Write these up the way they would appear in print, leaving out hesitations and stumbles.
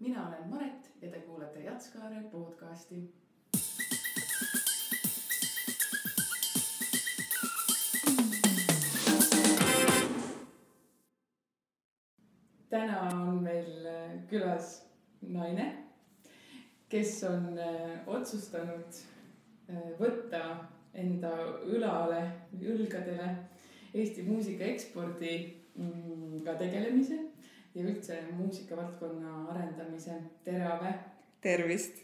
Mina olen Maret ja te kuulate Jatskaare podcasti. Täna on meil külas naine, kes on otsustanud võtta enda õlgadele Eesti muusika ekspordiga tegelemise ja üldse muusikavaldkonna arendamise. Tere, Ave! Tervist!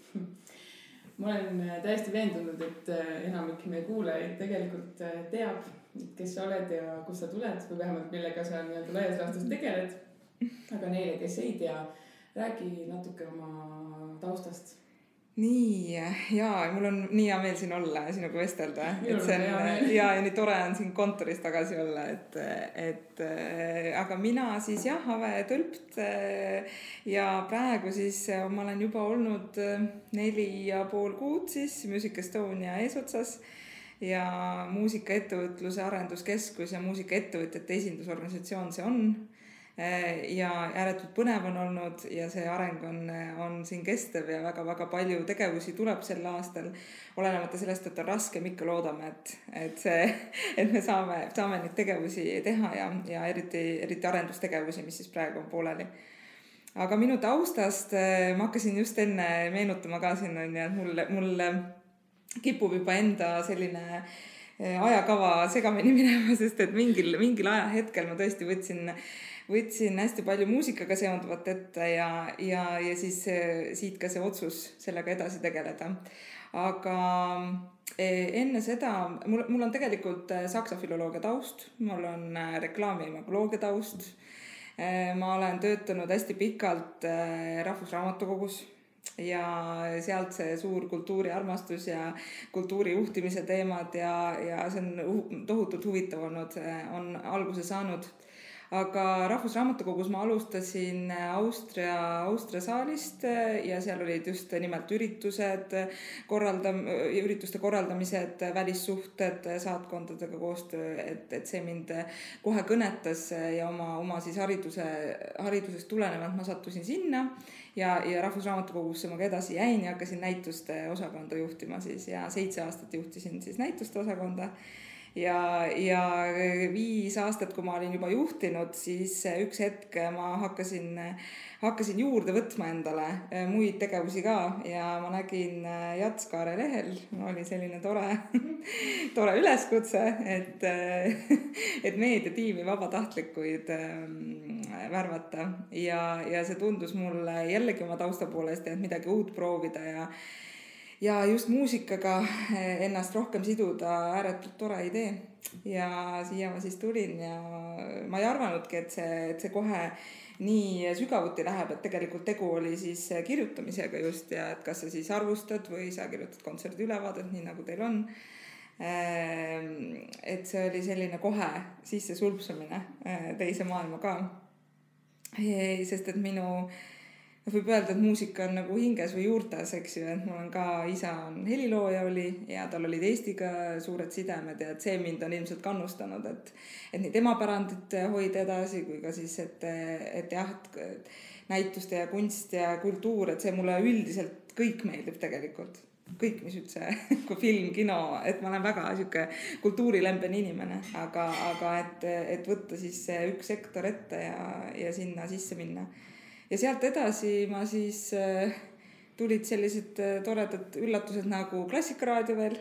Ma olen täiesti veendunud, et enamik meie kuulajaid tegelikult teab, kes sa oled ja kust sa tuled või vähemalt millega sa laias laastus tegeled. Aga neile, kes ei tea, räägi natuke oma taustast. Nii, jaa, mul on nii hea meel siin olla ja sinuga vestelda. Ja nii tore on siin kontoris tagasi olla. Aga mina siis Ave Tölpt ja praegu siis ma olen juba olnud 4,5 kuud siis Music Estonia eesotsas ja muusikaettevõtluse arenduskeskus ja muusikaettevõtjate esindusorganisatsioon see on. Ja ääretult põnev on olnud ja see areng on siin kestev ja väga-väga palju tegevusi tuleb sel aastal. Olenemata sellest, et on raske, ikka loodame, et me saame neid tegevusi teha ja eriti arendustegevusi, mis siis praegu on pooleli. Aga minu taustast ma hakkasin just enne meenutama ka siin, et mul kipub juba enda selline ajakava segamini minema, sest et mingil ajahetkel ma tõesti võtsin hästi palju muusikaga seonduvat ette ja siis siit ka see otsus sellega edasi tegeleda. Aga enne seda, mul on tegelikult saksa filoloogia taust, mul on reklaami- ja imagoloogia taust. Ma olen töötanud hästi pikalt Rahvusraamatukogus ja sealt see suur kultuuriarmastus ja kultuurijuhtimise teemad ja see on tohutult huvitav olnud, on alguse saanud. Aga Rahvusraamatukogus ma alustasin Austria saalist ja seal olid just nimelt ürituste korraldamised, välissuhted, saatkondadega koostöö, et see mind kohe kõnetas ja oma siis haridusest tulenevalt ma sattusin sinna ja Rahvusraamatukogusse ma ka edasi jäin ja hakkasin näituste osakonda juhtima siis ja 7 aastat juhtisin siis näituste osakonda. Ja 5 aastat, kui ma olin juba juhtinud, siis üks hetk ma hakkasin juurde võtma endale muid tegevusi ka ja ma nägin Jatskaare lehel, oli selline tore üleskutse, et meediatiimi vabatahtlikuid värvata ja see tundus mulle jällegi oma tausta poolest, et midagi uut proovida ja just muusikaga ennast rohkem siduda ääretult tore idee ja siia ma siis tulin ja ma ei arvanudki, et see kohe nii sügavuti läheb, et tegelikult tegu oli siis kirjutamisega just ja et kas sa siis arvustad või sa kirjutad kontserdi ülevaadet, nii nagu teil on. Et see oli selline kohe sisse sulpsumine teise maailma ka. Sest et võib öelda, et muusika on nagu hinges või juurtes, eks ju, et mul on ka isa on helilooja oli ja tal olid Eestiga suured sidemed ja et see mind on ilmselt kannustanud, et nii tema pärandit hoida edasi kui ka siis, et näituste ja kunst ja kultuur, et see mulle üldiselt kõik meeldib tegelikult. Kõik, mis üldse, kui film, kino, et ma olen väga siuke kultuurilembene inimene, aga et võtta siis üks sektor ette ja sinna sisse minna. Ja sealt edasi ma siis tulid sellised toredad üllatused nagu Klassikaraadio veel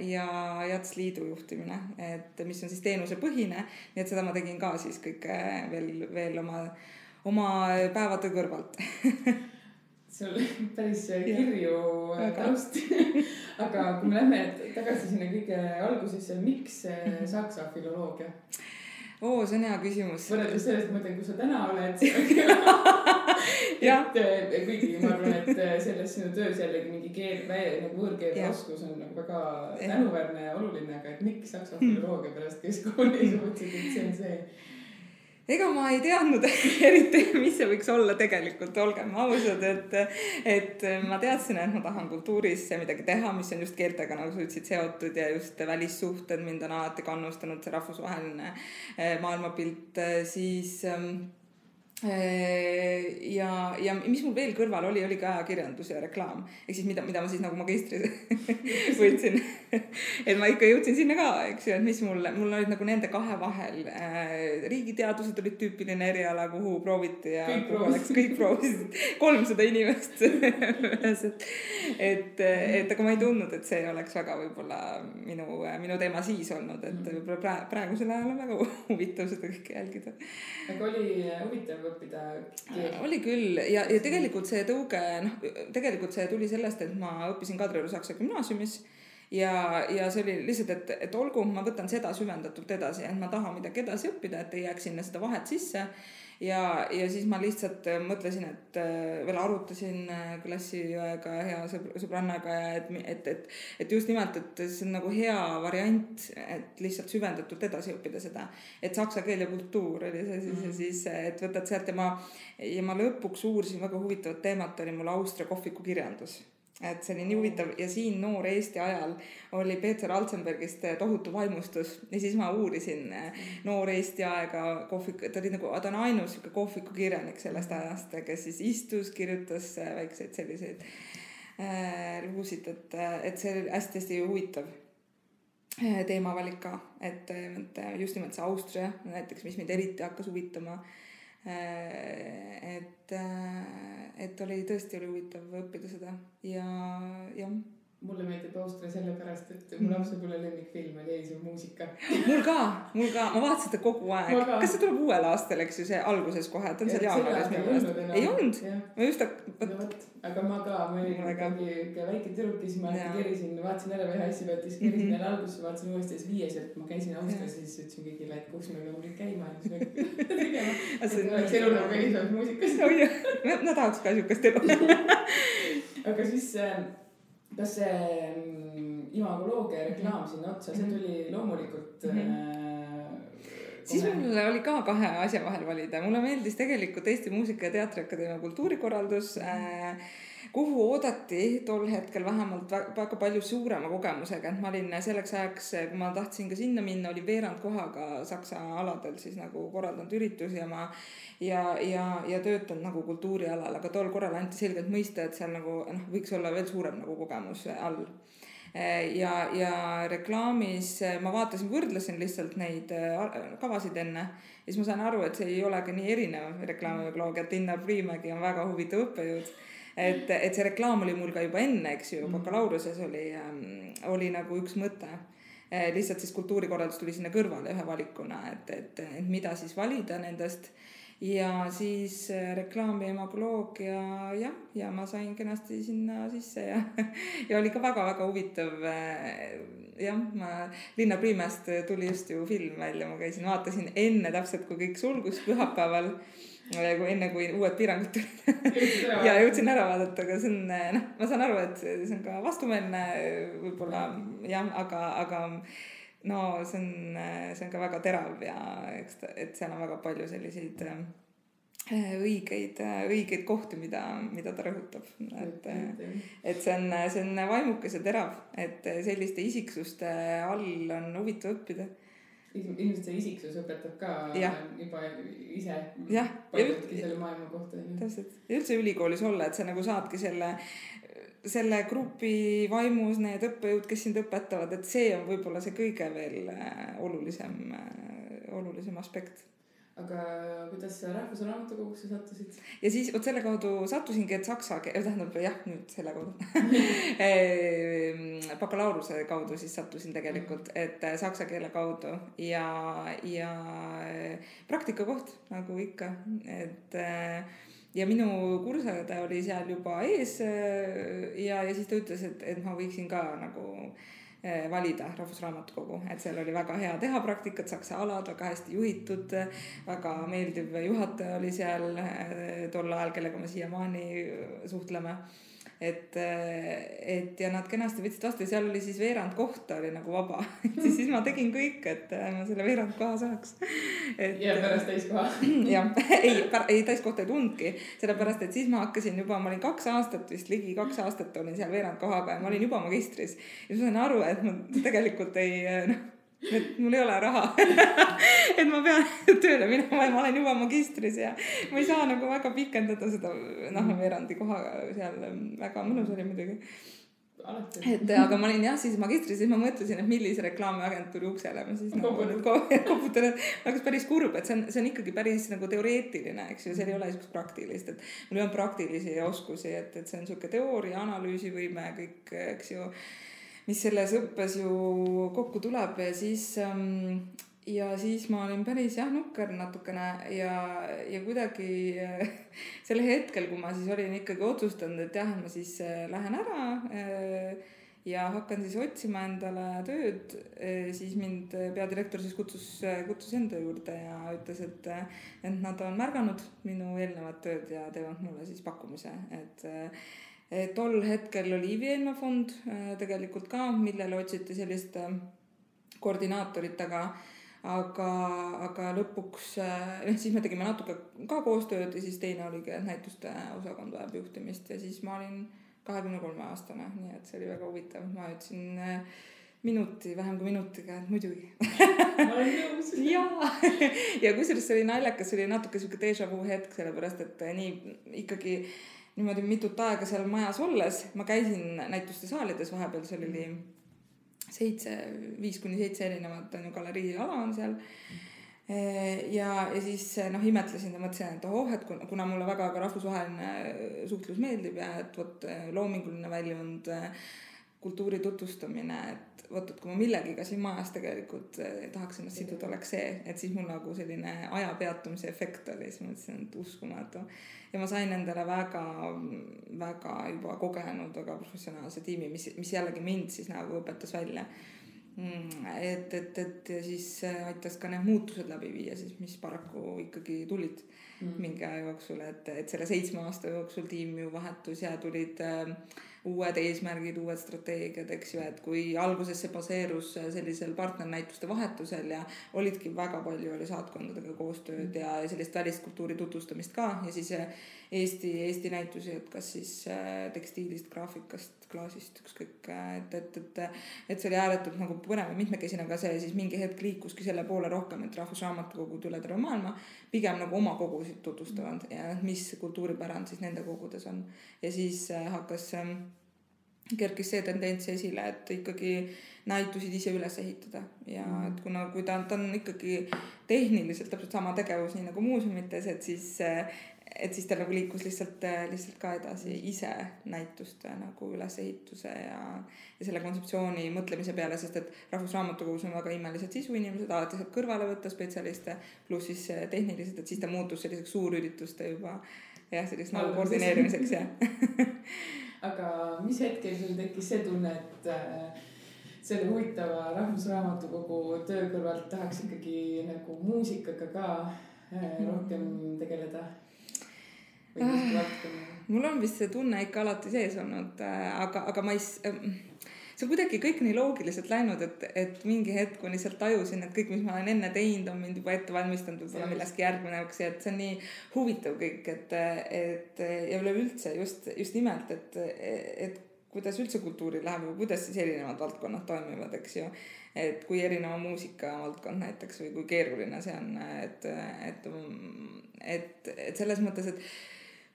ja Jats Liidu juhtimine, et mis on siis teenusepõhine, nii et seda ma tegin ka siis kõik veel oma päevade kõrvalt. See oli päris kirju taust. Aga kui me lähme tagasi sinna kõige algusesse, miks saksa filoloogia? See on hea küsimus. Võrreldes sellest mõtlen, kui sa täna oled. Kuigi ma arvan, et selles sinu töös jällegi mingi võõrkeele oskus on väga tänuväärne ja oluline, aga et miks saksa filoloogia pärast keskkooli suutsid, et see on see? Ega ma ei teadnud eriti, mis see võiks olla tegelikult, olgem ausad, et ma teadsin, et ma tahan kultuuris midagi teha, mis on just keeltega, nagu sa ütlesid, seotud ja just välissuhted mind on alati kannustanud, see rahvusvaheline maailmapilt, siis ja mis mul veel kõrval oli ka ajakirjandus ja reklaam. Ehk siis mida ma siis nagu magistris võtsin. Et ma ikka jõudsin sinna ka, eks ju, et mis mul olid nagu nende kahe vahel. Riigiteadused olid tüüpiline eriala, kuhu prooviti ja kõik proovisid 300 inimest. et aga ma ei tundnud, et see oleks väga võib-olla minu teema siis olnud, et võib-olla praegusel ajal on väga huvitav seda kõike jälgida. Aga oli huvitav õppida keelt? Oli küll ja tegelikult see tõuge, tegelikult see tuli sellest, et ma õppisin Kadrioru Saksa gümnaasiumis ja see oli lihtsalt, et olgu, ma võtan seda süvendatult edasi, et ma tahan midagi edasi õppida, et ei jääks sinna seda vahet sisse. Ja siis ma lihtsalt mõtlesin, et veel arutasin klassiõega hea sõbrannaga ja et just nimelt, et see on nagu hea variant, et lihtsalt süvendatult edasi õppida seda, et saksa keel ja kultuur oli see siis, et võtad sealt ja ma lõpuks uurisin väga huvitavat teemat, oli mul Austria kohviku kirjandus. Et see oli nii huvitav ja siin noor Eesti ajal oli Peeter Alzenbergist tohutu vaimustus ja siis ma uurisin noor Eesti aega ta on ainus kohviku kirjanik sellest ajast, kes siis istus, kirjutas väikseid selliseid lugusid, et see oli hästi huvitav teemavalik ka, et just nimelt see Austria näiteks, mis mind eriti hakkas huvitama, et oli huvitav õppida seda ja mulle meeldib Austria sellepärast, et mu lapsepõlve lemmikfilm oli Eis on muusika. Mul ka, ma vaatasin seda kogu aeg. Kas see tuleb uuel aastal, eks ju, see alguses kohe, et on seal jaanuaris? Ei olnud? Ma just aga ma olin väike tüdruk, siis ma kerisin, vaatasin ära ühe asja pealt, siis kerisin jälle alguses, vaatasin uuesti ja viies, et ma käisin Austrias, siis ütlesin kõigile, et kus me peame käima ja siis tegema. Et oleks elu nagu Eis on muusikas. No tahaks ka sihukest elu. Aga siis kas see imagoloogia reklaam sinna otsa, see tuli loomulikult siis mul oli ka kahe asja vahel valida. Mulle meeldis tegelikult Eesti Muusika- ja Teatriakadeemia kultuurikorraldus, kuhu oodati tol hetkel vähemalt väga palju suurema kogemusega, et ma olin selleks ajaks, kui ma tahtsin ka sinna minna, oli veerand kohaga Saksa aladel siis nagu korraldanud üritusi ja töötanud nagu kultuurialal, aga tol korral anti selgelt mõista, et seal nagu võiks olla veel suurem nagu kogemus all. Ja reklaamis ma võrdlesin lihtsalt neid kavasid enne ja siis ma sain aru, et see ei olegi nii erinev reklaamimagoloogia, et Linnar Priimägi on väga huvitav õppejõud, et see reklaam oli mul ka juba enne, eks ju, bakalaureuse oli nagu üks mõte, lihtsalt siis kultuurikorraldus tuli sinna kõrvale ühe valikuna, et mida siis valida nendest. Ja siis reklaam ja imagoloogia ja ma sain kenasti sinna sisse ja oli ka väga-väga huvitav. Linnar Priimäest tuli just ju film välja, ma vaatasin enne täpselt, kui kõik sulgus pühapäeval, enne kui uued piirangud tulid ja jõudsin ära vaadata, aga see on, ma saan aru, et see on ka vastumeelne võib-olla, aga no see on ka väga terav ja et seal on väga palju selliseid õigeid kohti, mida ta rõhutab. Et see on vaimukas ja terav, et selliste isiksuste all on huvitav õppida. Ilmselt see isiksus õpetab ka juba ise paljudki selle maailma kohta. Täpselt. Ja üldse ülikoolis olla, et sa nagu saadki selle grupi vaimus need õppejõud, kes sind õpetavad, et see on võib-olla see kõige veel olulisem aspekt. Aga kuidas sa Rahvusraamatukogusse sattusid? Ja siis selle kaudu sattusingi, et saksa tähendab nüüd selle kaudu bakalaureuse kaudu siis sattusin tegelikult, et saksa keele kaudu ja praktikakoht nagu ikka, et ja minu kursaõde oli seal juba ees ja siis ta ütles, et ma võiksin ka nagu valida Rahvusraamatukogu, et seal oli väga hea teha praktikat, saksa alad, väga hästi juhitud, väga meeldiv juhataja oli seal tol ajal, kellega me siiamaani suhtleme. Et ja nad kenasti võtsid vastu ja seal oli siis veerand kohta oli nagu vaba. Siis ma tegin kõik, et ma selle veerand koha saaks. Ja pärast täiskoha. Ja, ei täiskohta ei tundki, sellepärast, et siis ma hakkasin juba, ma olin 2 aastat vist, ligi 2 aastat olin seal veerand kohaga ja ma olin juba magistris. Ja ma sain aru, et ma tegelikult et mul ei ole raha et ma pean tööle minema ja ma olen juba magistris ja ma ei saa nagu väga pikendada seda veerandi kohaga seal. Väga mõnus oli muidugi. Et aga ma olin jah siis magistris, siis ma mõtlesin, et millise reklaamiagentuuri uksele ma siis koputan, et oleks päris kurb, et see on ikkagi päris nagu teoreetiline, eks ju, seal ei ole niisugust praktilist, et mul ei ole praktilisi oskusi, et see on niisugune teooria, analüüsivõime, kõik, eks ju, mis selles õppes ju kokku tuleb ja siis ma olin päris nukker natukene ja kuidagi selle hetkel, kui ma siis olin ikkagi otsustanud, et ma siis lähen ära ja hakkan siis otsima endale tööd, siis mind peadirektor siis kutsus enda juurde ja ütles, et nad on märganud minu eelnevat tööd ja teevad mulle siis pakkumise, et tol hetkel oli Ivi-Eenmaa fond tegelikult ka, millele otsiti sellist koordinaatorit, aga lõpuks siis me tegime natuke ka koostööd ja siis teine oligi, et näituste osakond vajab juhtimist ja siis ma olin 23-aastane, nii et see oli väga huvitav. Ma ütlesin vähem kui minutiga, et muidugi. Ma olen nõus. ja kusjuures see oli naljakas, see oli natuke selline déjà vu hetk, sellepärast et nii ikkagi niimoodi mitut aega seal majas olles ma käisin näituste saalides vahepeal, seal oli 5-7 erinevat galeriiala on seal ja siis imetlesin ja mõtlesin, et et kuna mulle väga ka rahvusvaheline suhtlus meeldib ja et loominguline väljund, kultuuri tutvustamine, et kui ma millegiga siin majas tegelikult tahaks ennast siduda, oleks see, et siis mul nagu selline aja peatumise efekt oli, siis mõtlesin, et uskumatu ja ma sain endale väga, väga juba kogenud, väga professionaalse tiimi, mis jällegi mind siis nagu õpetas välja, et siis aitas ka need muutused läbi viia, siis mis paraku ikkagi tulid mingi aja jooksul, et selle 7 aasta jooksul tiim ju vahetus ja tulid uued eesmärgid, uued strateegiad, eks ju, et kui alguses see baseerus sellisel partnernäituste vahetusel ja olidki väga palju oli saatkondadega koostööd ja sellist väliskultuuri tutvustamist ka ja siis Eesti näitusi, et kas siis tekstiilist, graafikast, klaasist, ükskõik, et see oli ääretult nagu põnev ja mitmekesine, aga see siis mingi hetk liikuski selle poole rohkem, et Rahvusraamatukogud üle terve maailma pigem nagu oma kogusid tutvustavad ja mis kultuuripärand siis nende kogudes on ja siis kerkis see tendents esile, et ikkagi näitusid ise üles ehitada ja et kui ta on ikkagi tehniliselt täpselt sama tegevus nii nagu muuseumites, et siis ta nagu liikus lihtsalt ka edasi ise näituste nagu ülesehituse ja selle kontseptsiooni mõtlemise peale, sest et Rahvusraamatukogus on väga imelised sisuinimesed, alati saab kõrvale võtta spetsialiste, pluss siis tehniliselt, et siis ta muutus selliseks suurürituste juba selliseks nagu koordineerimiseks Aga mis hetkel sul tekkis see tunne, et selle huvitava Rahvusraamatukogu töö kõrvalt tahaks ikkagi nagu muusikaga ka rohkem tegeleda? Mul on vist see tunne ikka alati sees olnud, aga ma see on kuidagi kõik nii loogiliselt läinud, et mingi hetk ma lihtsalt tajusin, et kõik, mis ma olen enne teinud, on mind juba ette valmistanud võib-olla millestki järgmine, et see on nii huvitav kõik, et ja üleüldse just nimelt, et kuidas üldse kultuuri läheb või kuidas siis erinevad valdkonnad toimivad, eks ju, et kui erineva muusika valdkond näiteks või kui keeruline see on, et selles mõttes, et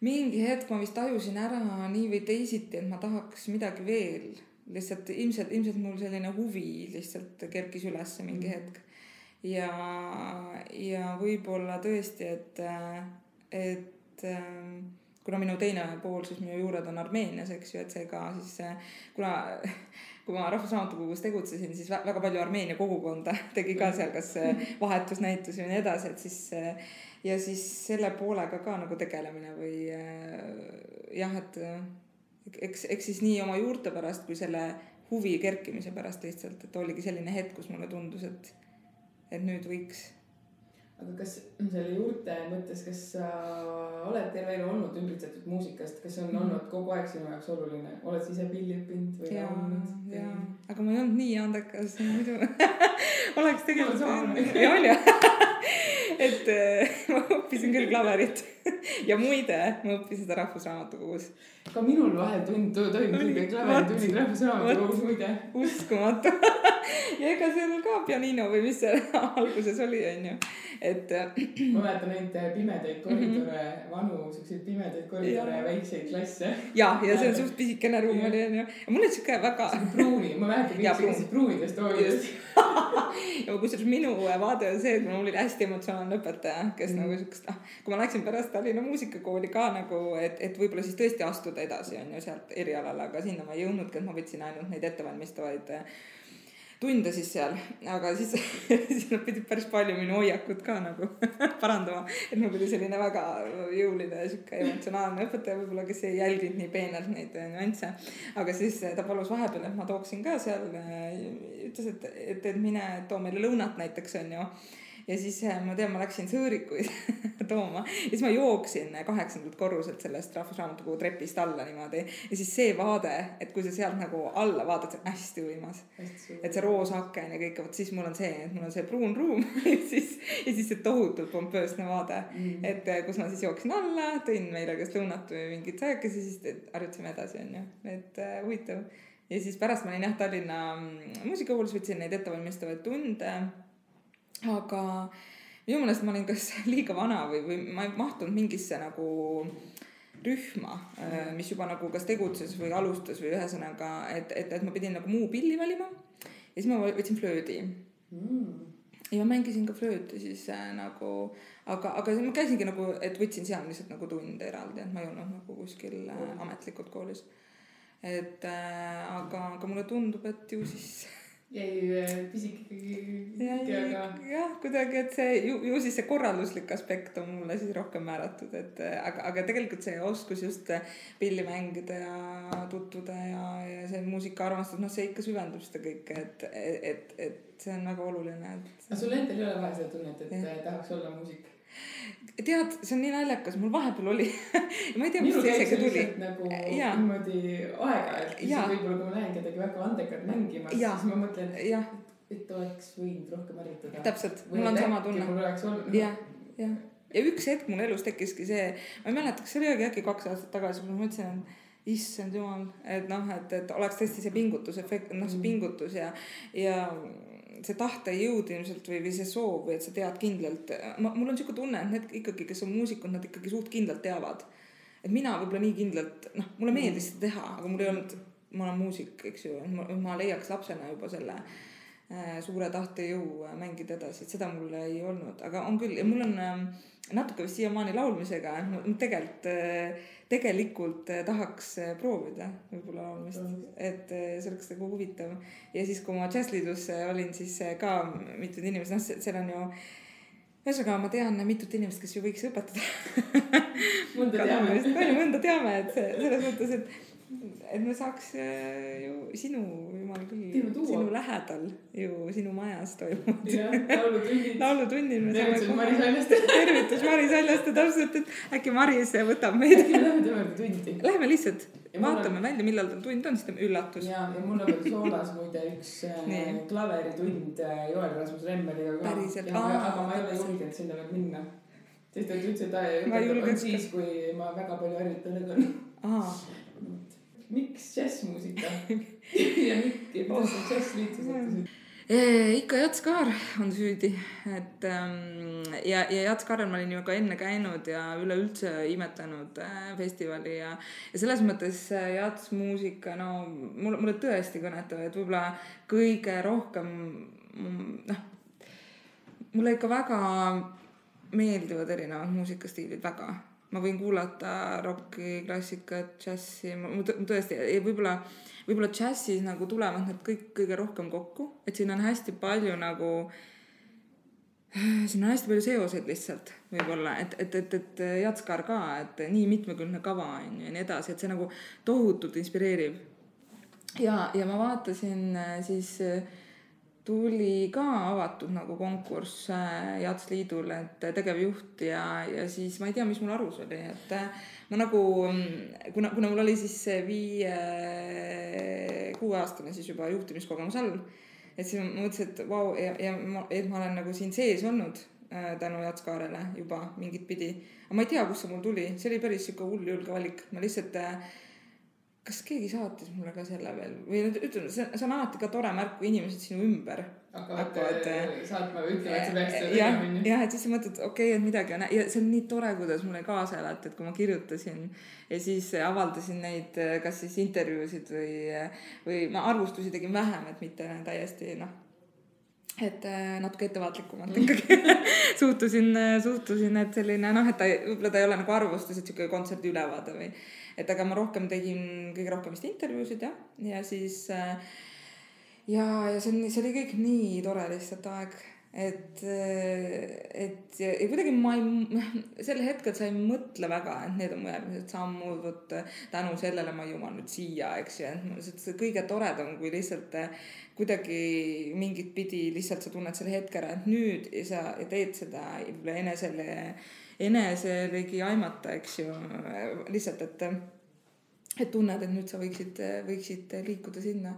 mingi hetk ma vist tajusin ära nii või teisiti, et ma tahaks midagi veel. Lihtsalt ilmselt mul selline huvi lihtsalt kerkis üles mingi hetk. Ja võib-olla tõesti, et kuna minu teine pool, siis minu juured on Armeenias, eks ju, et see ka siis, kui ma Rahvusraamatukogus tegutsesin, siis väga palju Armeenia kogukonda tegi ka seal kas vahetusnäitusi või nii edasi, et siis ja siis selle poolega ka nagu tegelemine või jah, et eks siis nii oma juurte pärast kui selle huvi kerkimise pärast lihtsalt, et oligi selline hetk, kus mulle tundus, et nüüd võiks. Aga kas selle juurte mõttes, kas sa oled terve elu olnud ümbritsetud muusikast, kas on olnud kogu aeg sinu jaoks oluline? Oled sa ise pilli õppinud või laulnud? Jaa, aga ma ei olnud nii andekas, muidu oleks tegelikult ja on ju. Et ma õppisin küll klaverit ja muide, ma õppisin seda Rahvusraamatukogus. Ka minul vahel toimub klaveritunnid Rahvusraamatukogus muide. Uskumatu. ja ega seal ka pianino või mis see alguses oli, onju. Et ma mäletan neid pimedaid koridore, vanu siukseid pimedaid koridore ja väikseid klasse. ja see on suht pisikene ruum oli, onju. ja mul oli siuke väga pruuni, ma mäletan kõik sellised pruunidest hoolidest. ja kusjuures minu vaade on see, et mul oli hästi emotsionaalne õpetaja, kes nagu siukest, kui ma läksin pärast Tallinna muusikakooli ka nagu, et võib-olla siis tõesti astuda edasi, onju, sealt erialale, aga sinna ma ei jõudnudki, et ma võtsin ainult neid ettevalmistavaid tunde siis seal, aga siis nad pidid päris palju minu hoiakut ka nagu parandama, et mul oli selline väga jõuline ja siuke emotsionaalne õpetaja võib-olla, kes ei jälginud nii peenelt neid nüansse, aga siis ta palus vahepeal, et ma tooksin ka seal, ütles, et mine too meile lõunat näiteks, onju. Ja siis ma tean, ma läksin sõõrikuid tooma ja siis ma jooksin 8. korruselt sellest Rahvusraamatukogu trepist alla niimoodi. Ja siis see vaade, et kui sa sealt nagu alla vaatad, see on hästi võimas. Et see roosaken ja kõik, siis mul on see pruun ruum ja siis see tohutult pompöösne vaade. Et kus ma siis jooksin alla, tõin meile kas lõunat või mingit sääkesi, siis harjutasime edasi, onju. Et huvitav. Ja siis pärast ma olin Tallinna muusikakoolis, võtsin neid ettevalmistavaid tunde. Aga minu meelest ma olin kas liiga vana või ma ei mahtunud mingisse nagu rühma, mis juba nagu kas tegutses või alustas või ühesõnaga, et ma pidin nagu muu pilli valima ja siis ma võtsin flöödi. Ja ma mängisin ka flööti siis nagu, aga ma käisingi nagu, et võtsin seal lihtsalt nagu tunde eraldi, et ma ei olnud nagu kuskil ametlikult koolis. Et aga mulle tundub, et ju siis jäi pisik ikkagi, aga jah, kuidagi, et see ju siis see korralduslik aspekt on mulle siis rohkem määratud, et aga tegelikult see oskus just pilli mängida ja tutvuda ja see muusikaarmastus, see ikka süvendab seda kõike, et see on väga oluline. Aga sul endal ei ole vaja seda tunnet, et tahaks olla muusik? Tead, see on nii naljakas, mul vahepeal oli ma ei tea, mis see isegi tuli nagu niimoodi aeg-ajalt võib-olla kui ma näen kedagi väga andekalt mängimas, siis ma mõtlen, et oleks võinud rohkem harjutada. Täpselt, mul on sama tunne. Mul oleks olnud ja üks hetk mul elus tekkiski see, ma ei mäleta, kas see oli äkki 2 aastat tagasi, kui ma mõtlesin, issand jumal, et oleks tõesti see pingutusefekt, see pingutus ja see tahte jõud ilmselt või see soov või et sa tead kindlalt. Mul on siuke tunne, et need ikkagi, kes on muusikud, nad ikkagi suht kindlalt teavad. Et mina võib-olla nii kindlalt, mulle meeldis seda teha, aga mul ei olnud, ma olen muusik, eks ju, ma leiaks lapsena juba selle suure tahte jõu mängida edasi, et seda mul ei olnud, aga on küll ja mul on natuke vist siiamaani laulmisega, tegelikult tahaks proovida võib-olla laulmist, et see oleks nagu huvitav. Ja siis, kui ma Jazzliidus olin, siis ka mitud inimesed, seal on ju, ühesõnaga ma tean mitut inimest, kes ju võiks õpetada. Mõnda teame, et selles mõttes, et me saaks ju sinu, jumal küll, sinu lähedal ju sinu majas toimub. Laulutunnil. Tervitus Mari Saljaste täpselt, et äkki Maris võtab meid. Äkki me läheme temaga tundi. Läheme lihtsalt, vaatame välja, millal ta tund on, siis ta üllatus. Ja mul on veel soolas muide üks klaveritund Joel Rasmus Remmeliga. Päriselt. Aga ma ei ole julgenud sinna veel minna. Sest ta ütles, et on siis, kui ma väga palju harjutan. Miks džässmuusika? Ja kuidas sa džässliitu sattusid? Ikka Jats Kaar on süüdi, et ja Jats Kaarel ma olin ju ka enne käinud ja üleüldse imetlenud festivali ja selles mõttes Jats muusika, mulle tõesti kõnetab, et võib-olla kõige rohkem mulle ikka väga meeldivad erinevad muusikastiilid, väga. Ma võin kuulata rocki, klassikat, džässi, tõesti, võib-olla džässis nagu tulevad need kõik kõige rohkem kokku, et siin on hästi palju nagu, siin on hästi palju seoseid lihtsalt võib-olla, et Jats Kaar ka, et nii mitmekülgne kava on ja nii edasi, et see nagu tohutult inspireerib. Ja ma vaatasin siis tuli ka avatud nagu konkurss Jazzliidul, et tegevjuht ja siis ma ei tea, mis mul arus oli, et ma nagu, kuna mul oli siis 5-6 aastane siis juba juhtimiskogemus all, et siis ma mõtlesin, et vau, et ma olen nagu siin sees olnud tänu Jats Kaarele juba mingit pidi, aga ma ei tea, kus see mul tuli, see oli päris siuke hull julge valik, ma lihtsalt kas keegi saatis mulle ka selle veel või ütleme, see on alati ka tore märk, kui inimesed sinu ümber hakkavad saatma või ütlema, et sa peaks seda tegema minna. Jah, et siis sa mõtled, okei, et midagi on ja see on nii tore, kuidas mulle kaasa elati, et kui ma kirjutasin ja siis avaldasin neid kas siis intervjuusid või ma arvustusi tegin vähem, et mitte täiesti et natuke ettevaatlikumalt ikkagi suhtusin, et selline et võib-olla ta ei ole nagu arvustus, et siuke kontserdi ülevaade või et aga ma rohkem tegin kõige rohkem vist intervjuusid ja siis ja see oli kõik nii tore lihtsalt aeg, et ja kuidagi sel hetkel sa ei mõtle väga, et need on mu järgmised sammud, võt tänu sellele ma jõuan nüüd siia, eks ju, et see kõige toredam, kui lihtsalt kuidagi mingit pidi lihtsalt sa tunned selle hetke ära, et nüüd ja sa teed seda eneselegi aimata, eks ju, lihtsalt, et tunned, et nüüd sa võiksid liikuda sinna.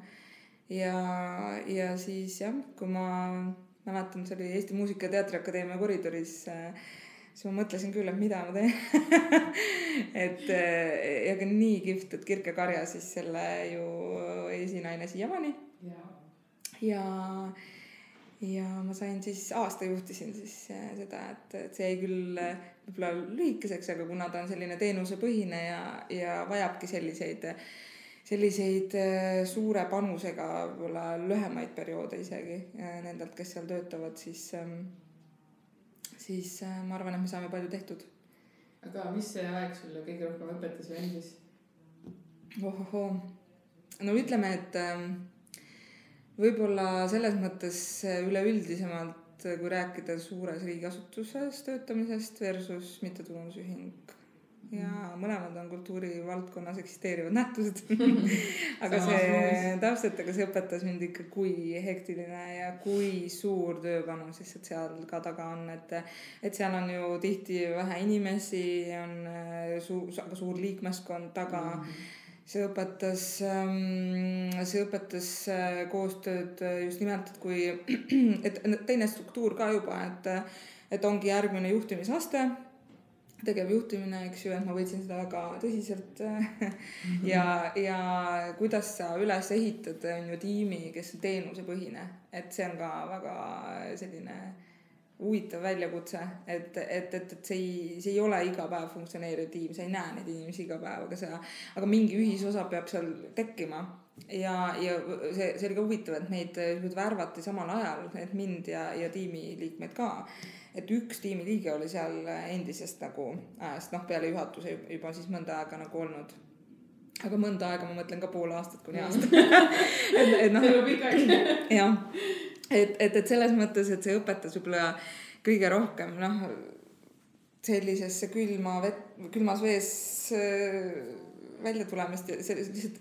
Ja siis jah, kui ma mäletan, see oli Eesti Muusika- ja Teatriakadeemia koridoris, siis ma mõtlesin küll, et mida ma teen. ja ka nii kihvt, et Kirke Karja siis selle ju esinaine siiamaani. Ja ma sain siis, aasta juhtisin siis seda, et see jäi küll võib-olla lühikeseks, aga kuna ta on selline teenusepõhine ja vajabki selliseid suure panusega võib-olla lühemaid perioode isegi nendelt, kes seal töötavad, siis ma arvan, et me saame palju tehtud. Aga mis see aeg sulle kõige rohkem õpetas või endis? No ütleme, et võib-olla selles mõttes üleüldisemalt, kui rääkida suures riigiasutuses töötamisest versus mittetulundusühing. Ja mõlemad on kultuurivaldkonnas eksisteerivad nähtused. aga see õpetas mind ikka, kui hektiline ja kui suur tööpanus lihtsalt seal ka taga on, et seal on ju tihti vähe inimesi, on aga suur liikmeskond taga. See õpetas koostööd just nimelt, et teine struktuur ka juba, et ongi järgmine juhtimisaste, tegevjuhtimine, eks ju, et ma võtsin seda väga tõsiselt ja kuidas sa üles ehitad on ju tiimi, kes on teenusepõhine, et see on ka väga selline huvitav väljakutse, et see ei ole iga päev funktsioneeriv tiim, sa ei näe neid inimesi iga päev, aga mingi ühisosa peab seal tekkima ja see oli ka huvitav, et meid värvati samal ajal, et mind ja tiimiliikmeid ka. Et üks tiimiliige oli seal endisest nagu ajast, peale juhatuse juba siis mõnda aega nagu olnud. Aga mõnda aega ma mõtlen ka pool aastat kuni aasta. See on pikagi. Jah, et selles mõttes, et see õpetas võib-olla kõige rohkem sellisesse külmas vees välja tulemist ja lihtsalt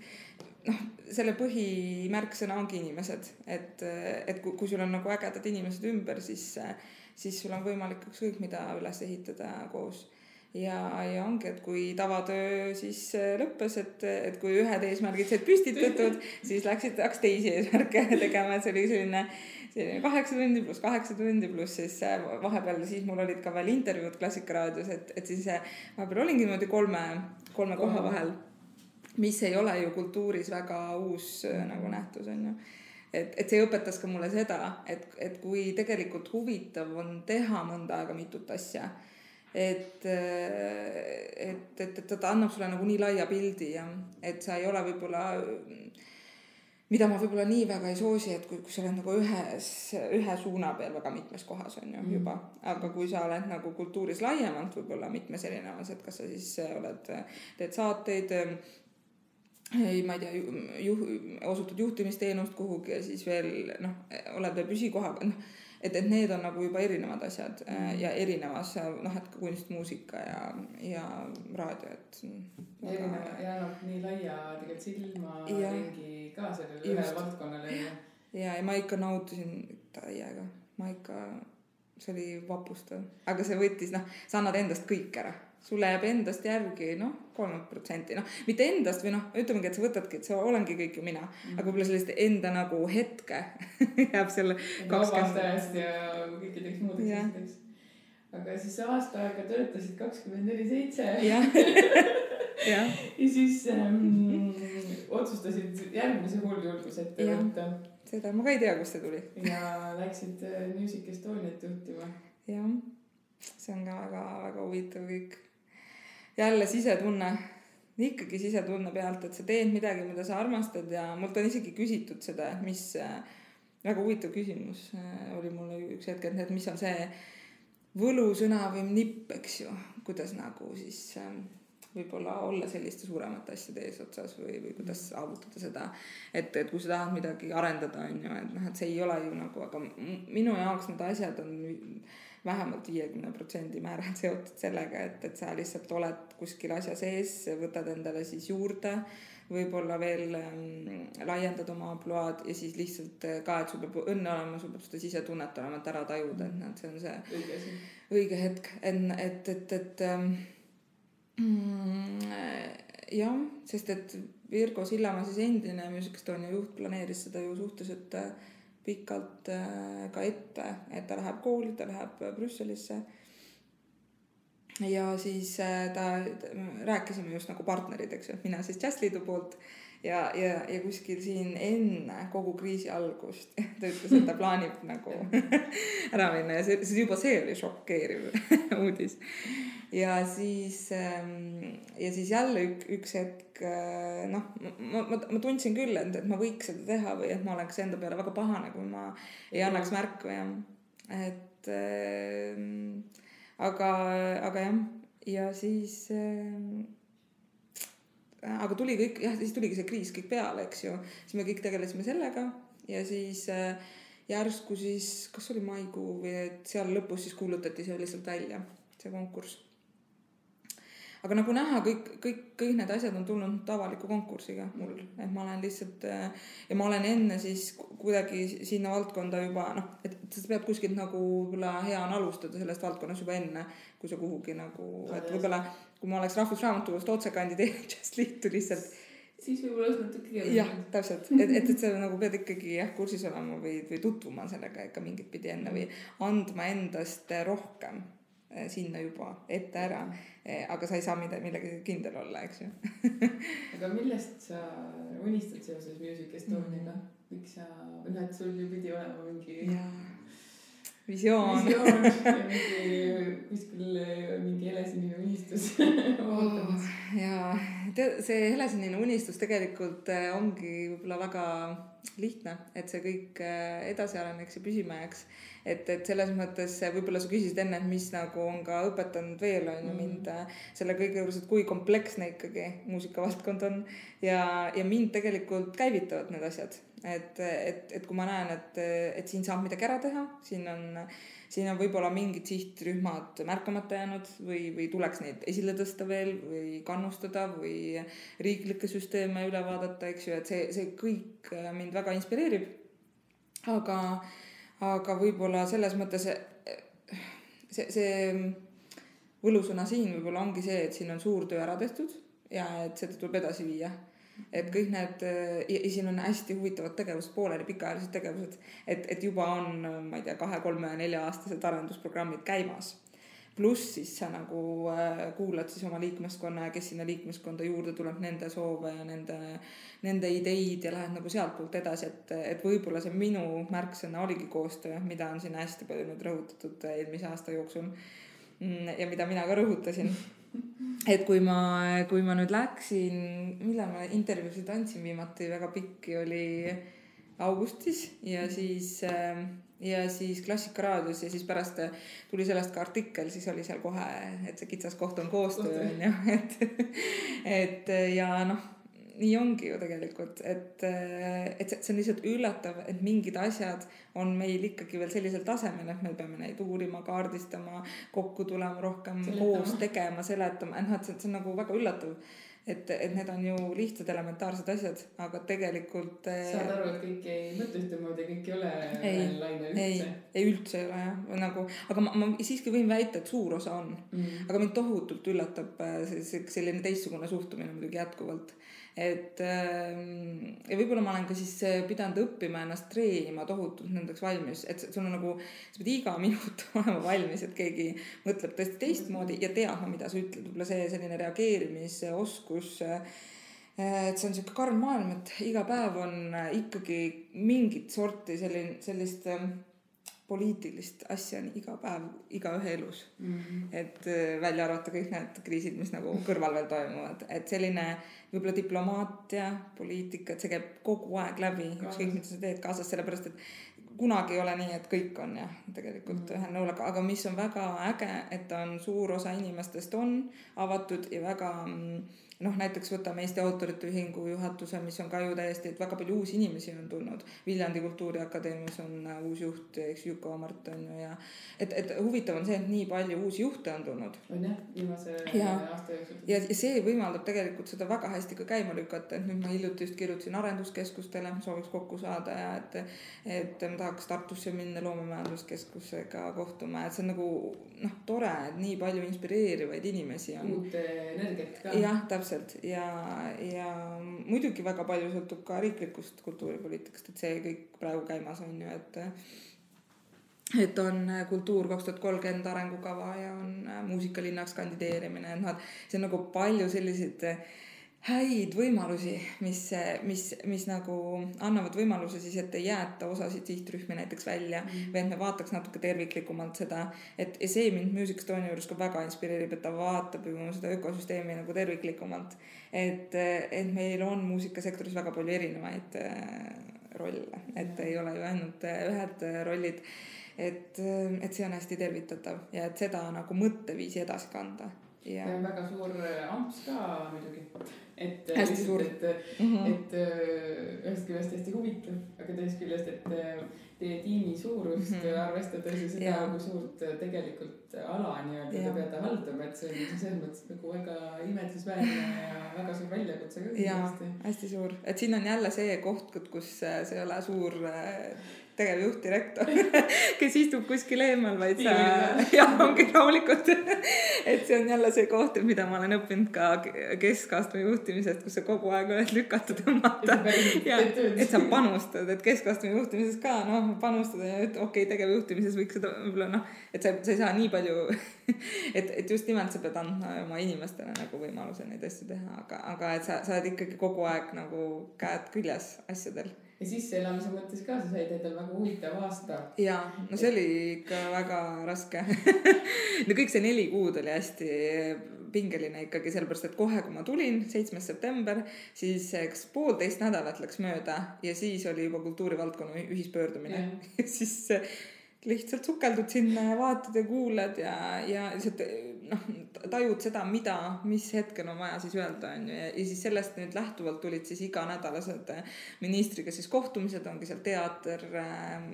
selle põhimärksõna ongi inimesed, et kui sul on nagu ägedad inimesed ümber, siis sul on võimalik ükskõik mida üles ehitada koos. Ja ongi, et kui tavatöö siis lõppes, et kui ühed eesmärgid said püstitatud, siis hakkas teisi eesmärke tegema, et see oli selline 8 tundi pluss 8 tundi pluss siis vahepeal siis mul olid ka veel intervjuud Klassikaraadios, et siis vahepeal olingi niimoodi kolme koha vahel, mis ei ole ju kultuuris väga uus nagu nähtus on ju. Et see õpetas ka mulle seda, et kui tegelikult huvitav on teha mõnda aega mitut asja, et ta annab sulle nagu nii laia pildi ja et sa ei ole võib-olla, mida ma võib-olla nii väga ei soosi, et kui sa oled nagu ühe suuna peal väga mitmes kohas on ju juba, aga kui sa oled nagu kultuuris laiemalt võib-olla mitmes erinevas, et kas sa siis teed saateid, ma ei tea, osutad juhtimisteenust kuhugi ja siis veel oled veel püsikohaga, et need on nagu juba erinevad asjad ja erinevas, et kunstmuusika ja raadio, et ja nii laia tegelikult silma ringi ka sellele ühe valdkonnale. Ja ma ikka nautisin täiega, see oli vapustav, aga see võttis, sa annad endast kõik ära. Sulle jääb endast järgi 3%, mitte endast või ütlemegi, et sa võtadki, et sa olengi kõik ju mina, aga võib-olla sellist enda nagu hetke jääb selle 20. Vabastajast ja kõikideks muudeks asjadeks. Aga siis aasta aega töötasid 24/7. Ja. Ja siis otsustasid järgmise hulljulgus ette võtta. Seda ma ka ei tea, kust see tuli. Ja läksid Music Estoniat juhtima. Jah, see on ka väga huvitav kõik. Jälle sisetunne, ikkagi sisetunne pealt, et sa teed midagi, mida sa armastad ja mult on isegi küsitud seda, mis väga huvitav küsimus oli mulle üks hetk, et mis on see võlusõna või nipp, eks ju, kuidas nagu siis võib-olla olla selliste suuremate asjade eesotsas või kuidas saavutada seda, et kui sa tahad midagi arendada, on ju, et see ei ole ju nagu, aga minu jaoks need asjad on vähemalt 50% määral seotud sellega, et sa lihtsalt oled kuskil asja sees, võtad endale siis juurde, võib-olla veel laiendad oma ampluaad ja siis lihtsalt ka, et sul peab õnne olema, sul peab seda sisetunnet olema, et ära tajuda, et see on see õige hetk, et jah, sest et Virgo Sillamaa siis endine Music Estonia juht planeeris seda ju suhteliselt pikalt ka ette, et ta läheb kooli, ta läheb Brüsselisse ja siis rääkisime just nagu partnerid, eks ju, mina siis Jazzliidu poolt ja kuskil siin enne kogu kriisi algust ta ütles, et ta plaanib nagu ära minna ja juba see oli šokeeriv uudis ja siis jälle üks hetk ma tundsin küll, et ma võiks seda teha või et ma oleks enda peale väga pahane, kui ma ei annaks märku ja et aga jah ja siis aga tuli kõik, jah, siis tuligi see kriis kõik peale, eks ju, siis me kõik tegelesime sellega ja siis järsku siis, kas oli maikuu või et seal lõpus siis kuulutati see lihtsalt välja, see konkurss. Aga nagu näha, kõik need asjad on tulnud avaliku konkursiga mul, et ma olen lihtsalt ja ma olen enne siis kuidagi sinna valdkonda juba, et sa pead kuskilt nagu võib-olla hea on alustada sellest valdkonnas juba enne, kui sa kuhugi nagu, et võib-olla kui ma oleks Rahvusraamatukogust otse kandideerinud Jazzliitu lihtsalt siis võib-olla oleks natuke keeruline. Jah, täpselt, et sa nagu pead ikkagi kursis olema või tutvuma sellega ikka mingit pidi enne või andma endast rohkem sinna juba ette ära, aga sa ei saa millegi kindel olla, eks ju. Aga millest sa unistad seoses Music Estoniaga? Miks sa, et sul ju pidi olema mingi visioon ja mingi helesinine unistus ootamas. Ja see helesinine unistus tegelikult ongi võib-olla väga lihtne, et see kõik edasi areneks ja püsima jääks. Et selles mõttes võib-olla sa küsisid enne, et mis nagu on ka õpetanud veel on ju mind selle kõige juures, et kui kompleksne ikkagi muusikavaldkond on ja mind tegelikult käivitavad need asjad. Et kui ma näen, et siin saab midagi ära teha, siin on võib-olla mingid sihtrühmad märkamata jäänud või tuleks neid esile tõsta veel või kannustada või riiklikke süsteeme üle vaadata, eks ju, et see kõik mind väga inspireerib. Aga võib-olla selles mõttes see võlusõna siin võib-olla ongi see, et siin on suur töö ära tehtud ja et seda tuleb edasi viia. Et kõik need, ja siin on hästi huvitavad tegevused, pooleli pikaajalised tegevused, et juba on, ma ei tea, 2, 3, 4 aastased arendusprogrammid käimas. Pluss siis sa nagu kuulad siis oma liikmeskonna ja kes sinna liikmeskonda juurde tuleb, nende soove ja nende ideid ja lähed nagu sealt poolt edasi, et võib-olla see minu märksõna oligi koostöö, mida on siin hästi palju nüüd rõhutatud eelmise aasta jooksul ja mida mina ka rõhutasin. Et kui ma nüüd läksin, millal ma intervjuusid andsin viimati, väga pikki oli augustis ja siis Klassikaraadios ja siis pärast tuli sellest ka artikkel, siis oli seal kohe, et see kitsas koht on koostöö, et ja nii ongi ju tegelikult, et see on lihtsalt üllatav, et mingid asjad on meil ikkagi veel sellisel tasemel, et me peame neid uurima, kaardistama, kokku tulema rohkem, koos tegema, seletama, see on nagu väga üllatav, et need on ju lihtsad elementaarsed asjad, aga tegelikult saad aru, et kõik ei mõtle ühtemoodi, kõik ei ole laine üldse. Ei üldse ei ole jah, nagu, aga ma siiski võin väita, et suur osa on, aga mind tohutult üllatab selline teistsugune suhtumine muidugi jätkuvalt. Ja võib-olla ma olen ka siis pidanud õppima ennast treenima tohutult nendeks valmis, et sul on nagu, sa pead iga minut olema valmis, et keegi mõtleb tõesti teistmoodi ja teadma, mida sa ütled, võib-olla see selline reageerimisoskus et see on siuke karm maailm, et iga päev on ikkagi mingit sorti sellist poliitilist asja on iga päev, igaühe elus. Et välja arvata kõik need kriisid, mis nagu kõrval veel toimuvad. Et selline võib-olla diplomaatia, poliitika, et see käib kogu aeg läbi, ükskõik mida sa teed kaasas, sellepärast et kunagi ei ole nii, et kõik on jah, tegelikult ühel nõul, aga mis on väga äge, et on suur osa inimestest on avatud ja väga näiteks võtame Eesti Autorite Ühingu juhatuse, mis on ka ju täiesti, et väga palju uusi inimesi on tulnud. Viljandi Kultuuriakadeemias on uus juht, eks Juko Mart on ju ja et huvitav on see, et nii palju uusi juhte on tulnud. On jah, viimase aasta jooksul. Ja see võimaldab tegelikult seda väga hästi ka käima lükata, et nüüd ma hiljuti just kirjutasin arenduskeskustele, sooviks kokku saada ja et ma tahaks Tartusse minna loomemajanduskeskusega kohtuma, et see on nagu tore, et nii palju inspireerivaid inimesi on. Uut energiat ka. Jah, täpselt ja muidugi väga palju sõltub ka riiklikust kultuuripoliitikast, et see kõik praegu käimas on ju, et on Kultuur 2030 arengukava ja on muusikalinnaks kandideerimine, et see on nagu palju selliseid häid võimalusi, mis nagu annavad võimaluse siis, et ei jäeta osasid sihtrühmi näiteks välja või et me vaataks natuke terviklikumalt seda, et see mind Music Estonia juures ka väga inspireerib, et ta vaatab ju seda ökosüsteemi nagu terviklikumalt, et meil on muusikasektoris väga palju erinevaid rolle, et ei ole ju ainult ühed rollid, et see on hästi tervitatav ja et seda nagu mõtteviisi edasi kanda. Ja on väga suur amps ka muidugi, et hästi suur. Et ühest küljest hästi huvitav, aga teist küljest, et teie tiimi suurust arvestades ja seda, kui suurt tegelikult ala nii-öelda te peate haldama, et see on selles mõttes nagu väga imetlusväärne ja väga suur väljakutse ka. Ja, hästi suur, et siin on jälle see koht, kus see ei ole suur tegevjuht, direktor, kes istub kuskil eemal, vaid ongi rahulikult. Et see on jälle see koht, mida ma olen õppinud ka keskastme juhtimisest, kus sa kogu aeg oled lükatud tõmmata. Ja, et sa panustad, et keskastme juhtimises ka panustada ja et tegevjuhtimises võiks seda võib-olla et sa ei saa nii palju, et just nimelt sa pead andma oma inimestele nagu võimaluse neid asju teha, aga et sa oled ikkagi kogu aeg nagu käed küljes asjadel. Ja sisseelamise mõttes ka, sa said endal väga huvitav aasta. Ja, see oli ikka väga raske. Kõik see 4 kuud oli hästi pingeline ikkagi, sellepärast, et kohe, kui ma tulin 7. september, siis 1,5 nädalat läks mööda ja siis oli juba kultuurivaldkonna ühispöördumine. Ja siis lihtsalt sukeldud sinna ja vaatad ja kuulad ja tajud seda, mis hetkel on vaja siis öelda on ju. Ja siis sellest nüüd lähtuvalt tulid siis iganädalased ministriga siis kohtumised, ongi seal teater,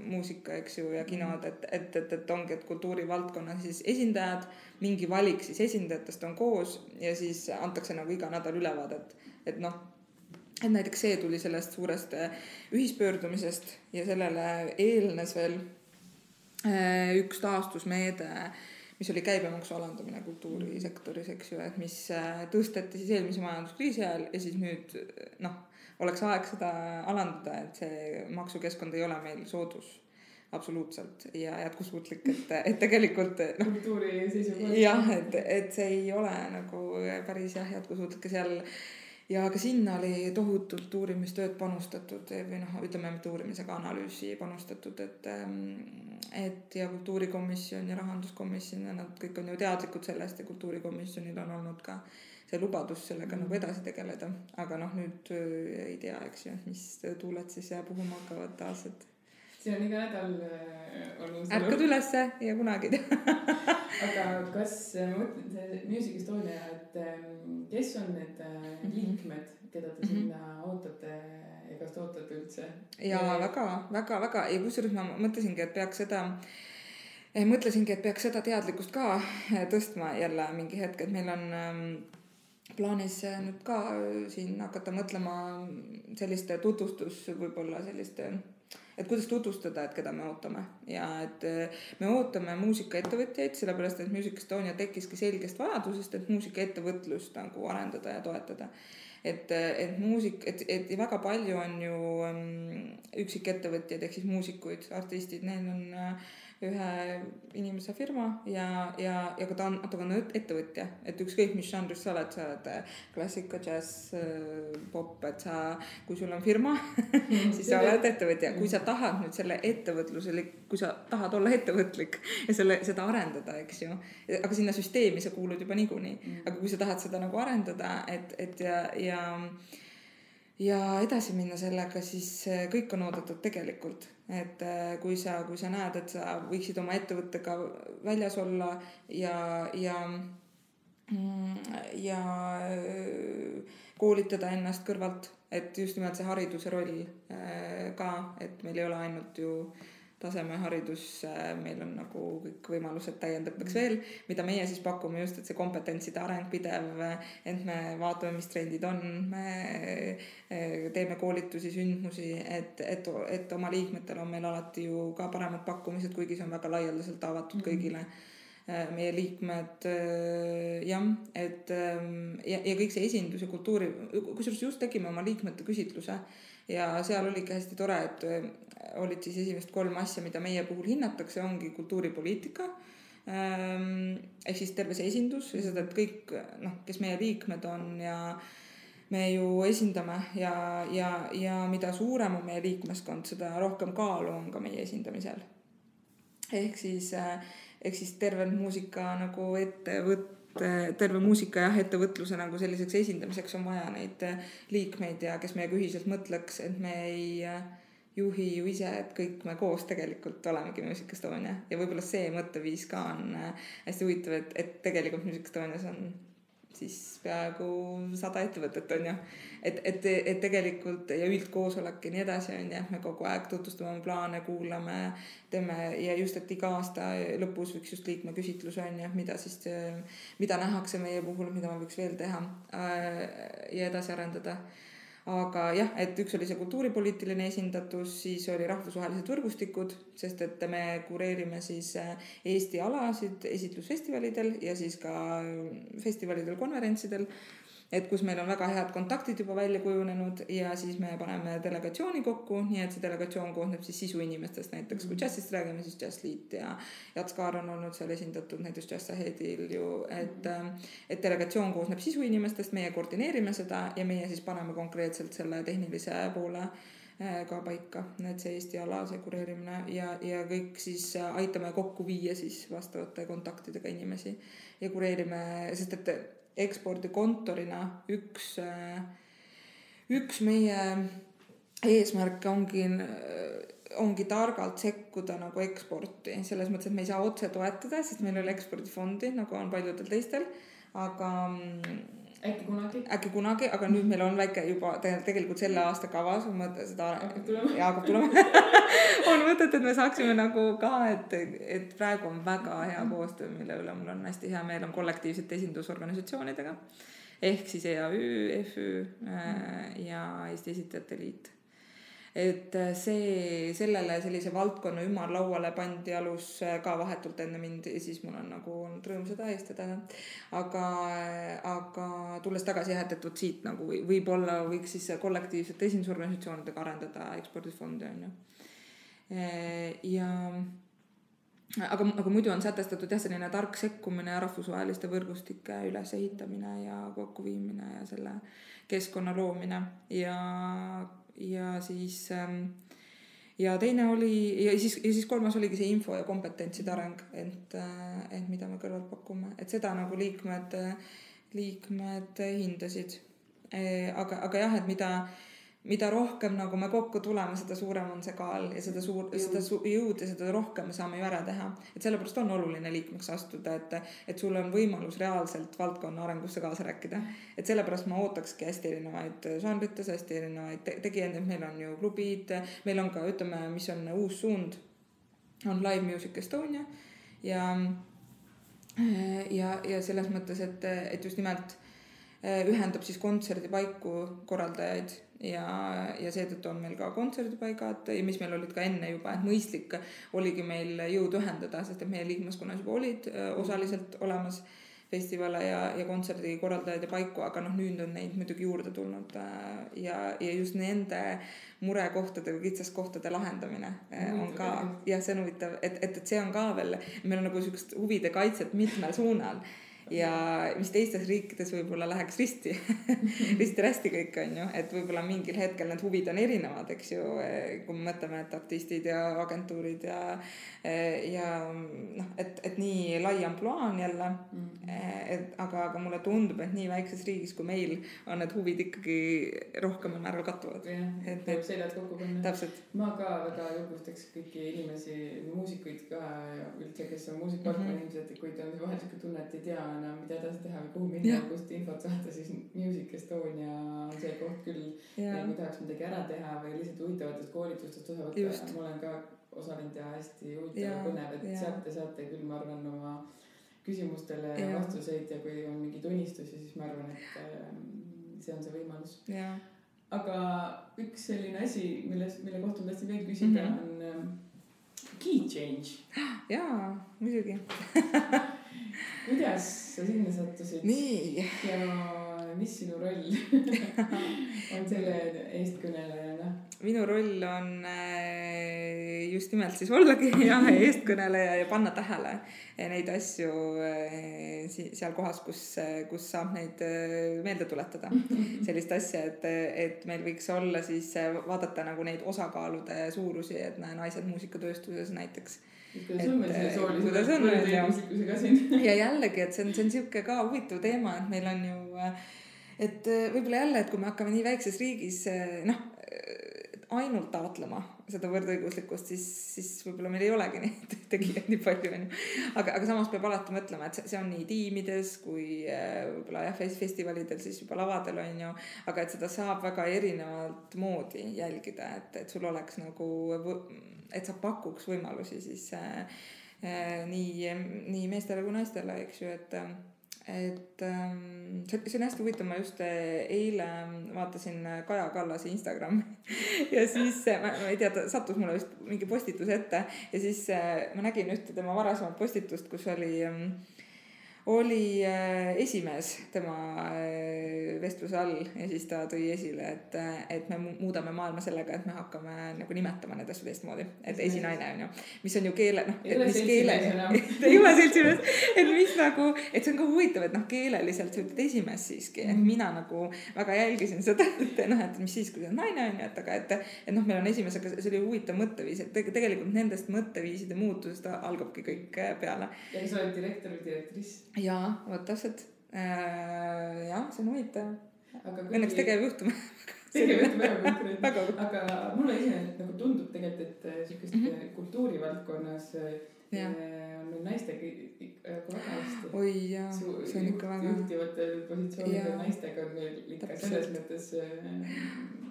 muusika, eks ju, ja kinod, et ongi, et kultuurivaldkonna siis esindajad, mingi valik siis esindajatest on koos ja siis antakse nagu iga nädal ülevaadet, et näiteks see tuli sellest suurest ühispöördumisest ja sellele eelnes veel üks taastusmeede, mis oli käibemaksu alandamine kultuurisektoris, eks ju, et mis tõsteti siis eelmise majanduskriisi ajal ja siis nüüd oleks aeg seda alandada, et see maksukeskkond ei ole meil soodus absoluutselt ja jätkusuutlik, et tegelikult kultuuri seisukohast. Jah, et see ei ole nagu päris jätkusuutlik seal. Ja ka sinna oli tohutult uurimistööd panustatud või ütleme, mitte uurimisega analüüsi panustatud, et ja kultuurikomisjon ja rahanduskomisjon ja nad kõik on ju teadlikud sellest ja kultuurikomisjonil on olnud ka see lubadus sellega nagu edasi tegeleda, aga nüüd ei tea, eks ju, mis tuuled siis puhuma hakkavad taas, et see on iga nädal ärkad ülesse ja kunagi aga kas ma mõtlen see Music Estonia, et kes on need liikmed, keda te sinna ootate ja kas te ootate üldse? Ja väga ja kusjuures ma mõtlesingi, et peaks seda teadlikkust ka tõstma jälle mingi hetk, et meil on plaanis nüüd ka siin hakata mõtlema selliste tutvustus võib-olla selliste, et kuidas tutvustada, et keda me ootame ja et me ootame muusikaettevõtjaid, sellepärast et Music Estonia tekkiski selgest vajadusest, et muusikaettevõtlust nagu arendada ja toetada. Et väga palju on ju üksikettevõtjaid ehk siis muusikuid, artistid, neil on ühe inimese firma ja ka ta on ettevõtja, et ükskõik mis žanris sa oled klassika, džäss, pop, et kui sul on firma siis sa oled ettevõtja. Kui sa tahad nüüd selle ettevõtlusele, kui sa tahad olla ettevõtlik ja seda arendada, eks ju, aga sinna süsteemi sa kuulud juba niikuinii, aga kui sa tahad seda nagu arendada, et ja edasi minna sellega, siis kõik on oodatud tegelikult. Et kui sa näed, et sa võiksid oma ettevõttega väljas olla ja koolitada ennast kõrvalt, et just nimelt see hariduse roll ka, et meil ei ole ainult ju tasemeharidus, meil on nagu kõik võimalused täiendatakse veel, mida meie siis pakume just, et see kompetentside areng pidev, et me vaatame, mis trendid on, me teeme koolitusi, sündmusi, et oma liikmetel on meil alati ju ka paremad pakkumised, kuigi see on väga laialdaselt avatud kõigile. Meie liikmed jah, et ja kõik see esindus ja kultuuri, kusjuures just tegime oma liikmete küsitluse ja seal oligi hästi tore, et olid siis esimest 3 asja, mida meie puhul hinnatakse, ongi kultuuripoliitika ehk siis terve see esindus ja seda, et kõik, kes meie liikmed on ja me ju esindame ja mida suurem on meie liikmeskond, seda rohkem kaalu on ka meie esindamisel. Ehk siis terve muusika nagu terve muusika ja ettevõtluse nagu selliseks esindamiseks on vaja neid liikmeid ja kes meiega ühiselt mõtleks, et me ei juhi ju ise, et kõik me koos tegelikult olemegi Music Estonia ja võib-olla see mõtteviis ka on hästi huvitav, et tegelikult Music Estonias on siis peaaegu 100 ettevõtet on ju, et tegelikult ja üldkoosolek ja nii edasi on ju, me kogu aeg tutvustame plaane, kuulame, teeme ja just, et iga aasta lõpus võiks just liikme küsitlus on ju, mida nähakse meie puhul, mida me võiks veel teha ja edasi arendada. Aga jah, et üks oli see kultuuripoliitiline esindatus, siis oli rahvusvahelised võrgustikud, sest et me kureerime siis Eesti alasid esitlusfestivalidel ja siis ka festivalidel, konverentsidel, et kus meil on väga head kontaktid juba välja kujunenud ja siis me paneme delegatsiooni kokku, nii et see delegatsioon koosneb siis sisuinimestest, näiteks kui džässist räägime, siis Džässliit ja Jats Kaar on olnud seal esindatud näiteks Jazz Aheadil ju, et delegatsioon koosneb sisuinimestest, meie koordineerime seda ja meie siis paneme konkreetselt selle tehnilise poole ka paika, et see Eesti ala, see kureerimine ja kõik siis aitame kokku viia siis vastavate kontaktidega inimesi ja kureerime, sest et ekspordikontorina üks meie eesmärke ongi targalt sekkuda nagu eksporti, selles mõttes, et me ei saa otse toetada, sest meil ei ole ekspordifondi, nagu on paljudel teistel, aga äkki kunagi, aga nüüd meil on väike juba tegelikult selle aasta kavas on mõte seda hakkab tulema on mõtet, et me saaksime nagu ka, et praegu on väga hea koostöö, mille üle mul on hästi hea meel, on kollektiivsete esindusorganisatsioonidega ehk siis EAÜ, FÜ ja Eesti Esitajate Liit. Et sellele sellise valdkonna ümarlauale pandi alus ka vahetult enne mind ja siis mul on nagu olnud rõõm seda eestada. Aga tulles tagasi jah, et siit nagu võib-olla võiks siis kollektiivsete esindusorganisatsioonidega arendada ekspordifondi on ju. Aga muidu on sätestatud jah selline tark sekkumine ja rahvusvaheliste võrgustike ülesehitamine ja kokkuviimine ja selle keskkonna loomine ja siis ja teine oli ja siis kolmas oligi see info ja kompetentside areng, et mida me kõrvalt pakume, et seda nagu liikmed hindasid. Aga jah, et mida rohkem nagu me kokku tuleme, seda suurem on see kaal ja seda jõud ja seda rohkem me saame ju ära teha. Et sellepärast on oluline liikmeks astuda, et sul on võimalus reaalselt valdkonna arengusse kaasa rääkida. Et sellepärast ma ootakski hästi erinevaid žanrites, hästi erinevaid tegijaid, et meil on ju klubid, meil on ka, ütleme, mis on uus suund, on Live Music Estonia ja selles mõttes, et just nimelt ühendab siis kontserdipaiku korraldajaid ja seetõttu on meil ka kontserdipaigad, mis meil olid ka enne juba, et mõistlik oligi meil jõud ühendada, sest et meie liikmeskonnas juba olid osaliselt olemas festivale ja kontserdikorraldajaid ja paiku, aga noh, nüüd on neid muidugi juurde tulnud ja just nende murekohtade või kitsaskohtade lahendamine on ka, jah, see on huvitav, et see on ka veel, meil on nagu niisugust huvide kaitset mitmel suunal ja mis teistes riikides võib-olla läheks risti-rästi kõik on ju, et võib-olla mingil hetkel need huvid on erinevad, eks ju, kui me mõtleme, et artistid ja agentuurid ja noh, et nii lai ampluaa on jälle, aga mulle tundub, et nii väikses riigis kui meil on need huvid ikkagi rohkemal määral kattuvad. Et tuleb seljad kokku panna. Täpselt. Ma ka väga julgustaks kõiki inimesi, muusikuid ka ja üldse, kes on muusikavaldkonna inimesed, kui ta on vahel siuke tunne, et ei tea enam, mida edasi teha või kuhu minna, kust infot saada, siis Music Estonia on see koht küll, kui tahaks midagi ära teha või lihtsalt huvitavatest koolitustest osa võtta. Ma olen ka osalenud ja hästi huvitav ja põnev, et sealt te saate küll, ma arvan, oma küsimustele vastuseid ja kui on mingi tunnistusi, siis ma arvan, et see on see võimalus. Aga üks selline asi, mille kohta ma tahtsin veel küsida, on key change. Jaa, muidugi. Kuidas sa sinna sattusid? Nii. Ja mis sinu roll on selle eestkõnelejana? Minu roll on just nimelt siis ollagi eestkõneleja ja panna tähele neid asju seal kohas, kus saab neid meelde tuletada. Sellist asja, et meil võiks olla siis vaadata nagu neid osakaalude suurusi, et naised muusikatööstuses näiteks. Kuidas on meil selle soolise võrdõiguslikkusega siin? Ja jällegi, et see on siuke ka huvitav teema, et meil on ju, et võib-olla jälle, et kui me hakkame nii väikses riigis ainult taotlema seda võrdõiguslikkust, siis võib-olla meil ei olegi neid tegijaid nii palju. Aga samas peab alati mõtlema, et see on nii tiimides kui võib-olla festivalidel, siis juba lavadel on ju, aga et seda saab väga erinevalt moodi jälgida, et sul oleks nagu, et sa pakuks võimalusi siis nii meestele kui naistele, eks ju, et see on hästi huvitav, ma just eile vaatasin Kaja Kallase Instagrami ja siis ma ei tea, ta sattus mulle vist mingi postitus ette ja siis ma nägin ühte tema varasemat postitust, kus oli esimees tema vestluse all ja siis ta tõi esile, et me muudame maailma sellega, et me hakkame nagu nimetama need asju teistmoodi, et esinaine on ju, mis on ju keele, mis keele ei ole seltsimees, et mis nagu, et see on ka huvitav, et keeleliselt sa ütled esimees siiski, et mina nagu väga jälgisin seda, et mis siis, kui see on naine on ju, aga et meil on esimees, aga see oli huvitav mõtteviis, et tegelikult nendest mõtteviiside muutusest algabki kõik peale. Ja sa oled direktor või direktriss? Jaa, vot täpselt. Jah, see on huvitav. Õnneks tegevjuhtum. Tegevjuhtum väga konkreetne. Aga mulle ise nagu tundub tegelikult, et sellist kultuurivaldkonnas on meil naistega väga hästi. Oi jaa, see on ikka väga. Juhtivatel positsioonidel naistega on meil ikka selles mõttes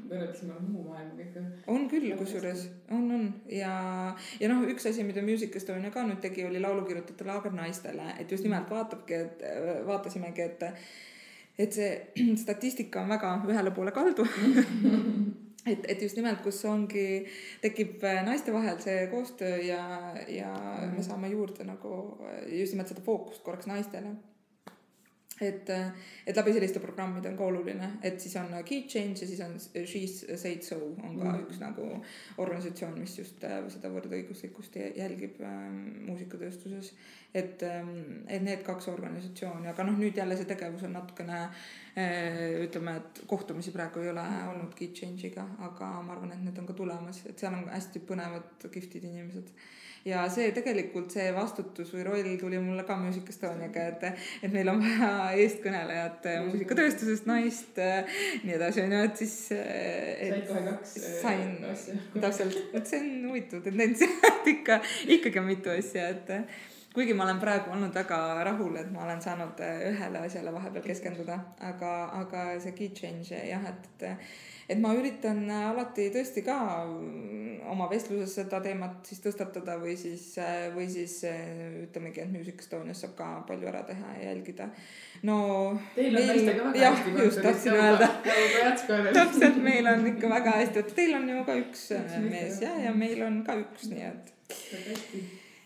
võrreldasime muu maailma ikka. On küll, kusjuures. On. Ja üks asi, mida Music Estonia ka nüüd tegi, oli laulukirjutajate laager naistele. Et just nimelt vaatasimegi, et see statistika on väga ühele poole kaldu. Et just nimelt, kus tekib naiste vahel see koostöö ja me saame juurde nagu just nimelt seda fookust korraks naistele. Et läbi selliste programmide on ka oluline, et siis on Key Change ja siis on She's Said So on ka üks nagu organisatsioon, mis just seda võrdõiguslikkust jälgib muusikatööstuses. Et need kaks organisatsiooni, aga nüüd jälle see tegevus on natukene, ütleme, et kohtumisi praegu ei ole olnud Key Change'iga, aga ma arvan, et need on ka tulemas, et seal on hästi põnevad giftid inimesed. Ja see tegelikult see vastutus või roll tuli mulle ka Music Estoniaga, et meil on vaja eestkõnelejat muusikatööstusest naist, nii edasi on ju, et siis said kohe kaks asja. Täpselt, et see on huvitav tendents, et ikkagi on mitu asja, et kuigi ma olen praegu olnud väga rahul, et ma olen saanud ühele asjale vahepeal keskenduda, aga see key change, jah, et ma üritan alati tõesti ka oma vestluses seda teemat siis tõstatada või siis ütlemegi, et Music Estonias saab ka palju ära teha ja jälgida. Teil on naistega väga hästi. Just tahtsin öelda. Täpselt, meil on ikka väga hästi. Teil on ju ka üks mees ja meil on ka üks, nii et.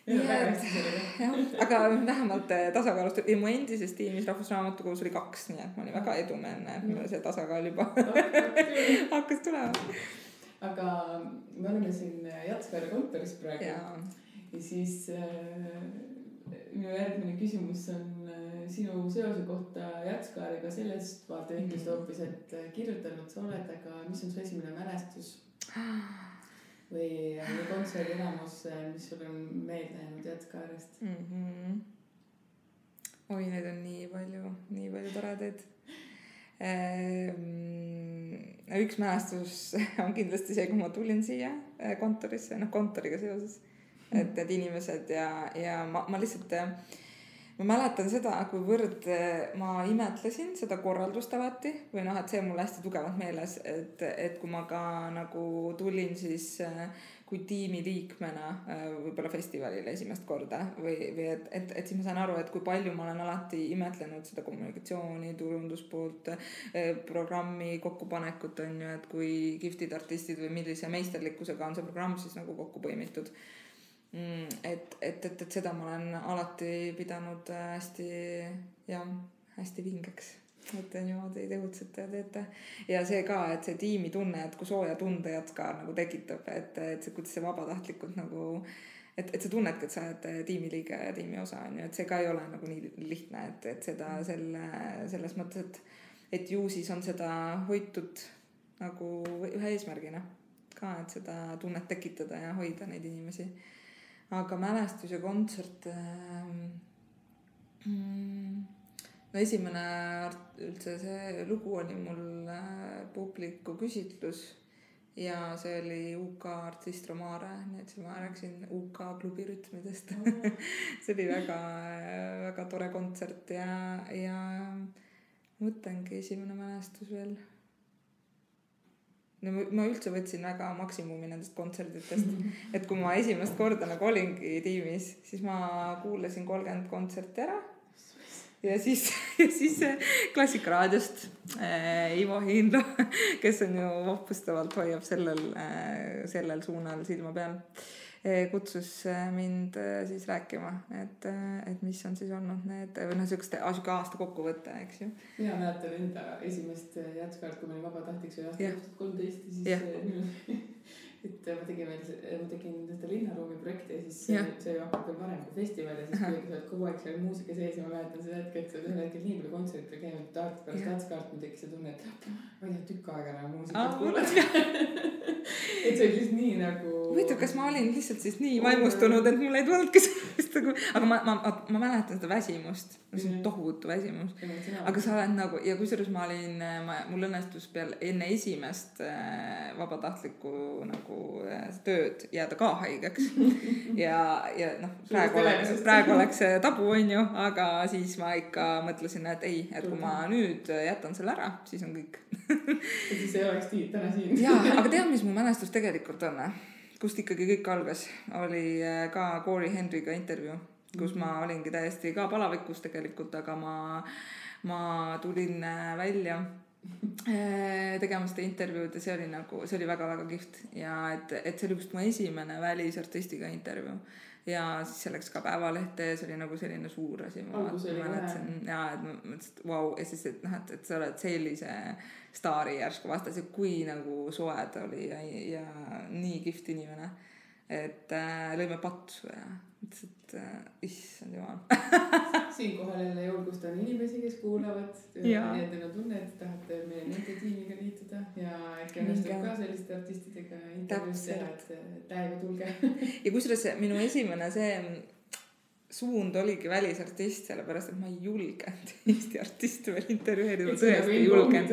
aga vähemalt tasakaalustab ja mu endises tiimis Rahvusraamatukogus oli 2, nii et ma olin väga edumeelne, et mul see tasakaal juba hakkas tulema. Aga me oleme siin Jatskaari kontoris praegu ja siis minu järgmine küsimus on sinu seose kohta Jatskaariga sellest vaatevinklist hoopis, et kirjutanud sa oled, aga mis on su esimene mälestus või kontserdi elamus, mis sul on meelde jäänud Jatskaarist? Oi, neid on nii palju toredaid. Üks mälestus on kindlasti see, kui ma tulin siia kontorisse, kontoriga seoses, et need inimesed ja ma lihtsalt ma mäletan seda, kuivõrd ma imetlesin seda korraldust alati või et see on mul hästi tugevalt meeles, et kui ma ka nagu tulin siis kui tiimi liikmena võib-olla festivalile esimest korda või et siis ma sain aru, et kui palju ma olen alati imetlenud seda kommunikatsiooni, turunduspoolt, programmi kokkupanekut on ju, et kui kihvtid artistid või millise meisterlikkusega on see programm siis nagu kokku põimitud. Et seda ma olen alati pidanud hästi vingeks, et niimoodi tegutsete ja teete ja see ka, et see tiimi tunne, et kui sooja tunde Jatskaar nagu tekitab, et see, kuidas see vabatahtlikult nagu et sa tunnedki, et sa oled tiimiliige ja tiimi osa on ju, et see ka ei ole nagu nii lihtne, et seda selles mõttes, et ju siis on seda hoitud nagu ühe eesmärgina ka, et seda tunnet tekitada ja hoida neid inimesi. Aga mälestus ja kontsert esimene üldse see lugu oli mul publiku küsitlus ja see oli UK artist Romare, nii et ma rääksin UK klubi rütmidest. See oli väga tore kontsert ja mõtlengi esimene mälestus veel. No, ma üldse võtsin väga maksimumi nendest kontserditest, et kui ma esimest korda nagu olingi tiimis, siis ma kuulasin 30 kontserti ära ja siis Klassikaraadiost Ivo Hiinlo, kes on ju vappustavalt hoiab sellel suunal silma peal, kutsus mind siis rääkima, et mis on siis olnud need siuke aasta kokkuvõte, eks ju. Mina mäletan enda esimest Jatskaart, kui ma olin vabatahtliks või aasta 2013 ja siis et ma tegin seda linnaruumi projekti ja siis see hakkab veel varem kui festival ja siis kui sa oled kogu aeg seal muusika sees ja ma mäletan seda hetke, et sa oled ühel hetkel nii palju kontsertil käinud pärast Jatskaart, ma tekkis see tunne, et ma ei tea tükk aega enam muusikat kuulata. Et see oli lihtsalt nii nagu huvitav, kas ma olin lihtsalt siis nii vaimustunud, et mul ei tulnudki sellest aga ma mäletan seda väsimust, see on tohutu väsimus, aga sa oled nagu ja kusjuures mul õnnestus peale enne esimest vabatahtlikku nagu tööd jääda ka haigeks ja praegu oleks tabu on ju, aga siis ma ikka mõtlesin, et ei, et kui ma nüüd jätan selle ära, siis on kõik. Ja siis ei oleks täna siin. Jaa, aga tead, mis mu mälestus tegelikult on? Kust ikkagi kõik algas, oli ka Corey Henryga intervjuu, kus ma olingi täiesti ka palavikus tegelikult, aga ma tulin välja tegema seda intervjuud ja see oli väga-väga kihvt ja et see oli just mu esimene välisartistiga intervjuu ja siis see läks ka Päevalehte ja see oli nagu selline suur asi. Ma mõtlesin, et vau, ja siis, et sa oled sellise staari järsku vastas ja kui nagu soe ta oli ja nii kihvt inimene, et lõime patsu ja mõtlesin, et issand jumal. Siinkohal jälle julgustan inimesi, kes kuulavad ja teil on tunne, et tahate meie nende tiimiga liituda ja äkki õnnestub ka selliste artistidega intervjuus teha, et täiega tulge. Ja kusjuures minu esimene see suund oligi välisartist, sellepärast, et ma ei julgenud Eesti artiste veel intervjueerida, ma tõesti ei julgenud.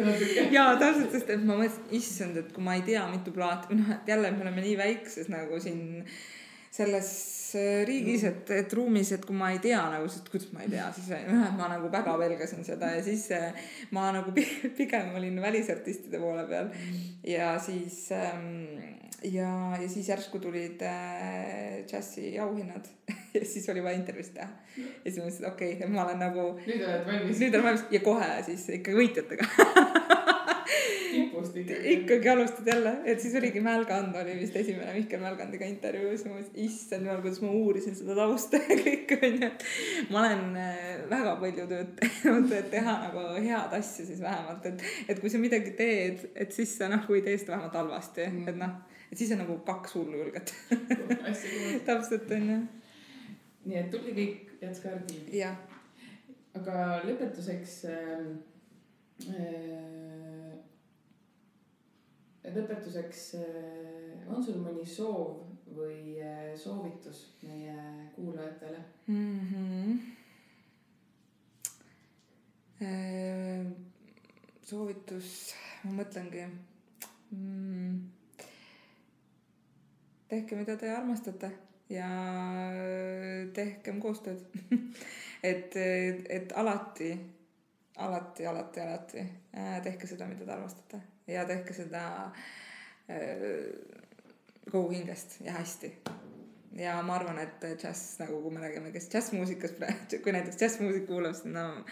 Jaa, täpselt, sest et ma mõtlesin, issand, et kui ma ei tea mitu plaati, jälle me oleme nii väikses nagu siin selles riigis, et ruumis, et kui ma ei tea nagu, sest kuidas ma ei tea, siis ma nagu väga pelgasin seda ja siis ma nagu pigem olin välisartistide poole peal ja siis järsku tulid džässi auhinnad ja siis oli vaja intervjuust teha ja siis ma mõtlesin, et okei, ma olen nagu nüüd olen valmis ja kohe siis ikka võitjatega ikkagi alustad jälle, et siis oligi Mälgand oli vist esimene Mihkel Mälgandiga intervjuus. Issand jumal, kuidas ma uurisin seda tausta ja kõik onju. Ma olen väga palju tööd teinud, et teha nagu head asja siis vähemalt, et kui sa midagi teed, et siis sa nagu ei tee seda vähemalt halvasti, et noh, et siis on nagu 2 hullu julget. Täpselt onju. Nii et tuli kõik Jatska arhiivi. Jah. Aga lõpetuseks on sul mõni soov või soovitus meie kuulajatele? Soovitus, ma mõtlengi. Tehke, mida te armastate ja tehkem koostööd. et alati tehke seda, mida te armastate ja tehke seda kogu hingest ja hästi. Ja ma arvan, et džäss, nagu kui me räägime, kes džässmuusikas, kui näiteks džässmuusik kuulab, siis no,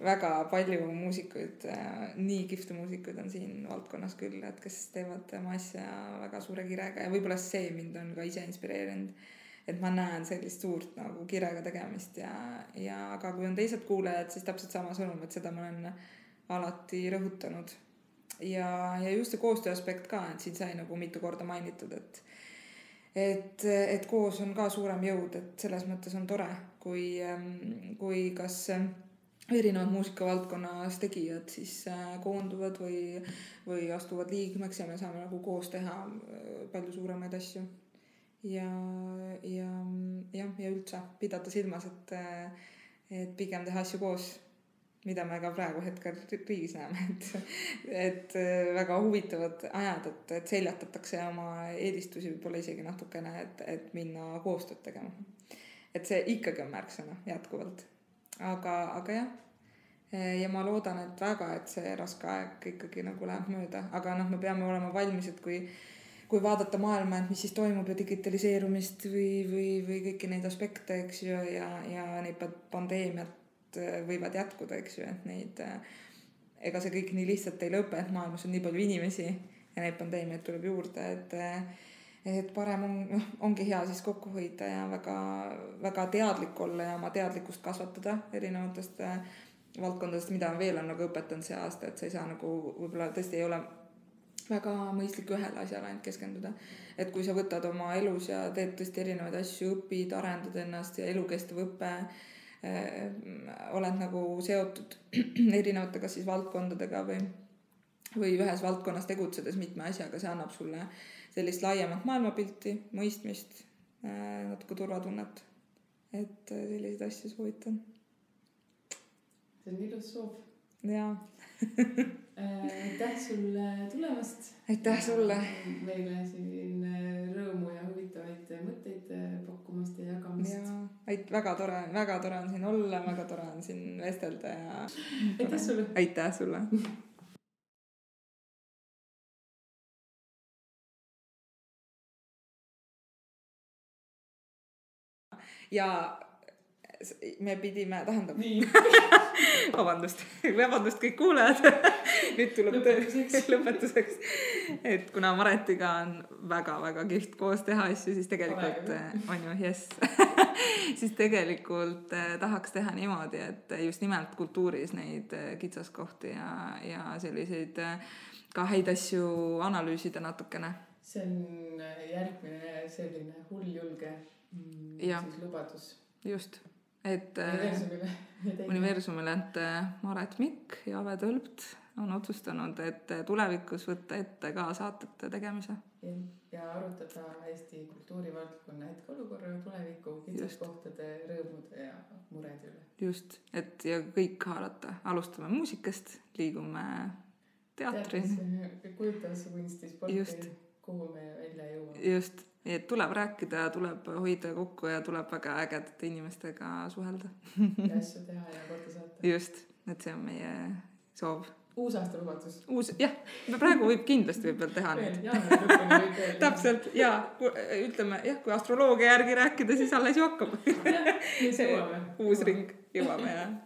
väga palju muusikuid, nii kihvte muusikuid on siin valdkonnas küll, et kes teevad oma asja väga suure kirega ja võib-olla see mind on ka ise inspireerinud, et ma näen sellist suurt nagu kirega tegemist ja aga kui on teised kuulajad, siis täpselt sama sõnum, et seda ma olen alati rõhutanud ja just see koostöö aspekt ka, et siin sai nagu mitu korda mainitud, et koos on ka suurem jõud, et selles mõttes on tore, kui kas erinevad muusikavaldkonnas tegijad siis koonduvad või astuvad liikmeks ja me saame nagu koos teha palju suuremaid asju ja üldse pidada silmas, et pigem teha asju koos, mida me ka praegu hetkel riigis näeme, et väga huvitavad ajad, et seljatatakse oma eelistusi võib-olla isegi natukene, et minna koostööd tegema. Et see ikkagi on märksõna jätkuvalt. Aga jah, ja ma loodan, et väga, et see raske aeg ikkagi nagu läheb mööda, aga noh, me peame olema valmis, et kui vaadata maailma, et mis siis toimub ja digitaliseerumist või kõiki neid aspekte, eks ju, ja neid pandeemiat võivad jätkuda, eks ju, et neid, ega see kõik nii lihtsalt ei lõpe, et maailmas on nii palju inimesi ja neid pandeemiaid tuleb juurde, et parem ongi hea siis kokku hoida ja väga, väga teadlik olla ja oma teadlikkust kasvatada erinevatest valdkondadest, mida veel on nagu õpetanud see aasta, et sa ei saa nagu võib-olla tõesti ei ole väga mõistlik ühele asjale ainult keskenduda. Et kui sa võtad oma elus ja teed tõesti erinevaid asju, õpid, arendad ennast ja elukestev õpe, oled nagu seotud erinevate kas siis valdkondadega või ühes valdkonnas tegutsedes mitme asjaga, see annab sulle sellist laiemat maailmapilti, mõistmist, natuke turvatunnet, et selliseid asju soovitan. See on ilus soov. Jaa. Aitäh sulle tulemast. Aitäh sulle. Meile siin rõõmu ja huvitavaid mõtteid pakkumast ja jagamast. Ja, väga tore on siin olla, väga tore on siin vestelda ja aitäh sulle. Aitäh sulle. Ja me pidime, tähendab vabandust kõik kuulajad nüüd tuleb lõpetuseks, et kuna Maretiga on väga-väga kihvt koos teha asju, siis tegelikult on ju yes. siis tegelikult tahaks teha niimoodi, et just nimelt kultuuris neid kitsaskohti ja selliseid ka häid asju analüüsida natukene. See on järgmine selline hulljulge siis lubadus. Just. Et universumile, et Maret Mikk ja Ave Tölpt on otsustanud, et tulevikus võtta ette ka saatete tegemise. Ja arutada Eesti kultuurivaldkonna hetkeolukorra tuleviku kitsaskohtade, rõõmude ja murede üle. Just, et ja kõik haarata. Alustame muusikast, liigume teatrini. Kujutasse kunsti, sporti, kuhu me välja jõuame. Just. Et tuleb rääkida, tuleb hoida kokku ja tuleb väga ägedate inimestega suhelda. Ja asju teha ja korda saata. Just, et see on meie soov. Uus aasta lubadus. Jah, praegu võib kindlasti veel teha nüüd. Täpselt, ja ütleme, kui astroloogia järgi rääkida, siis alles ju hakkab. Uus ring jõuame, jah.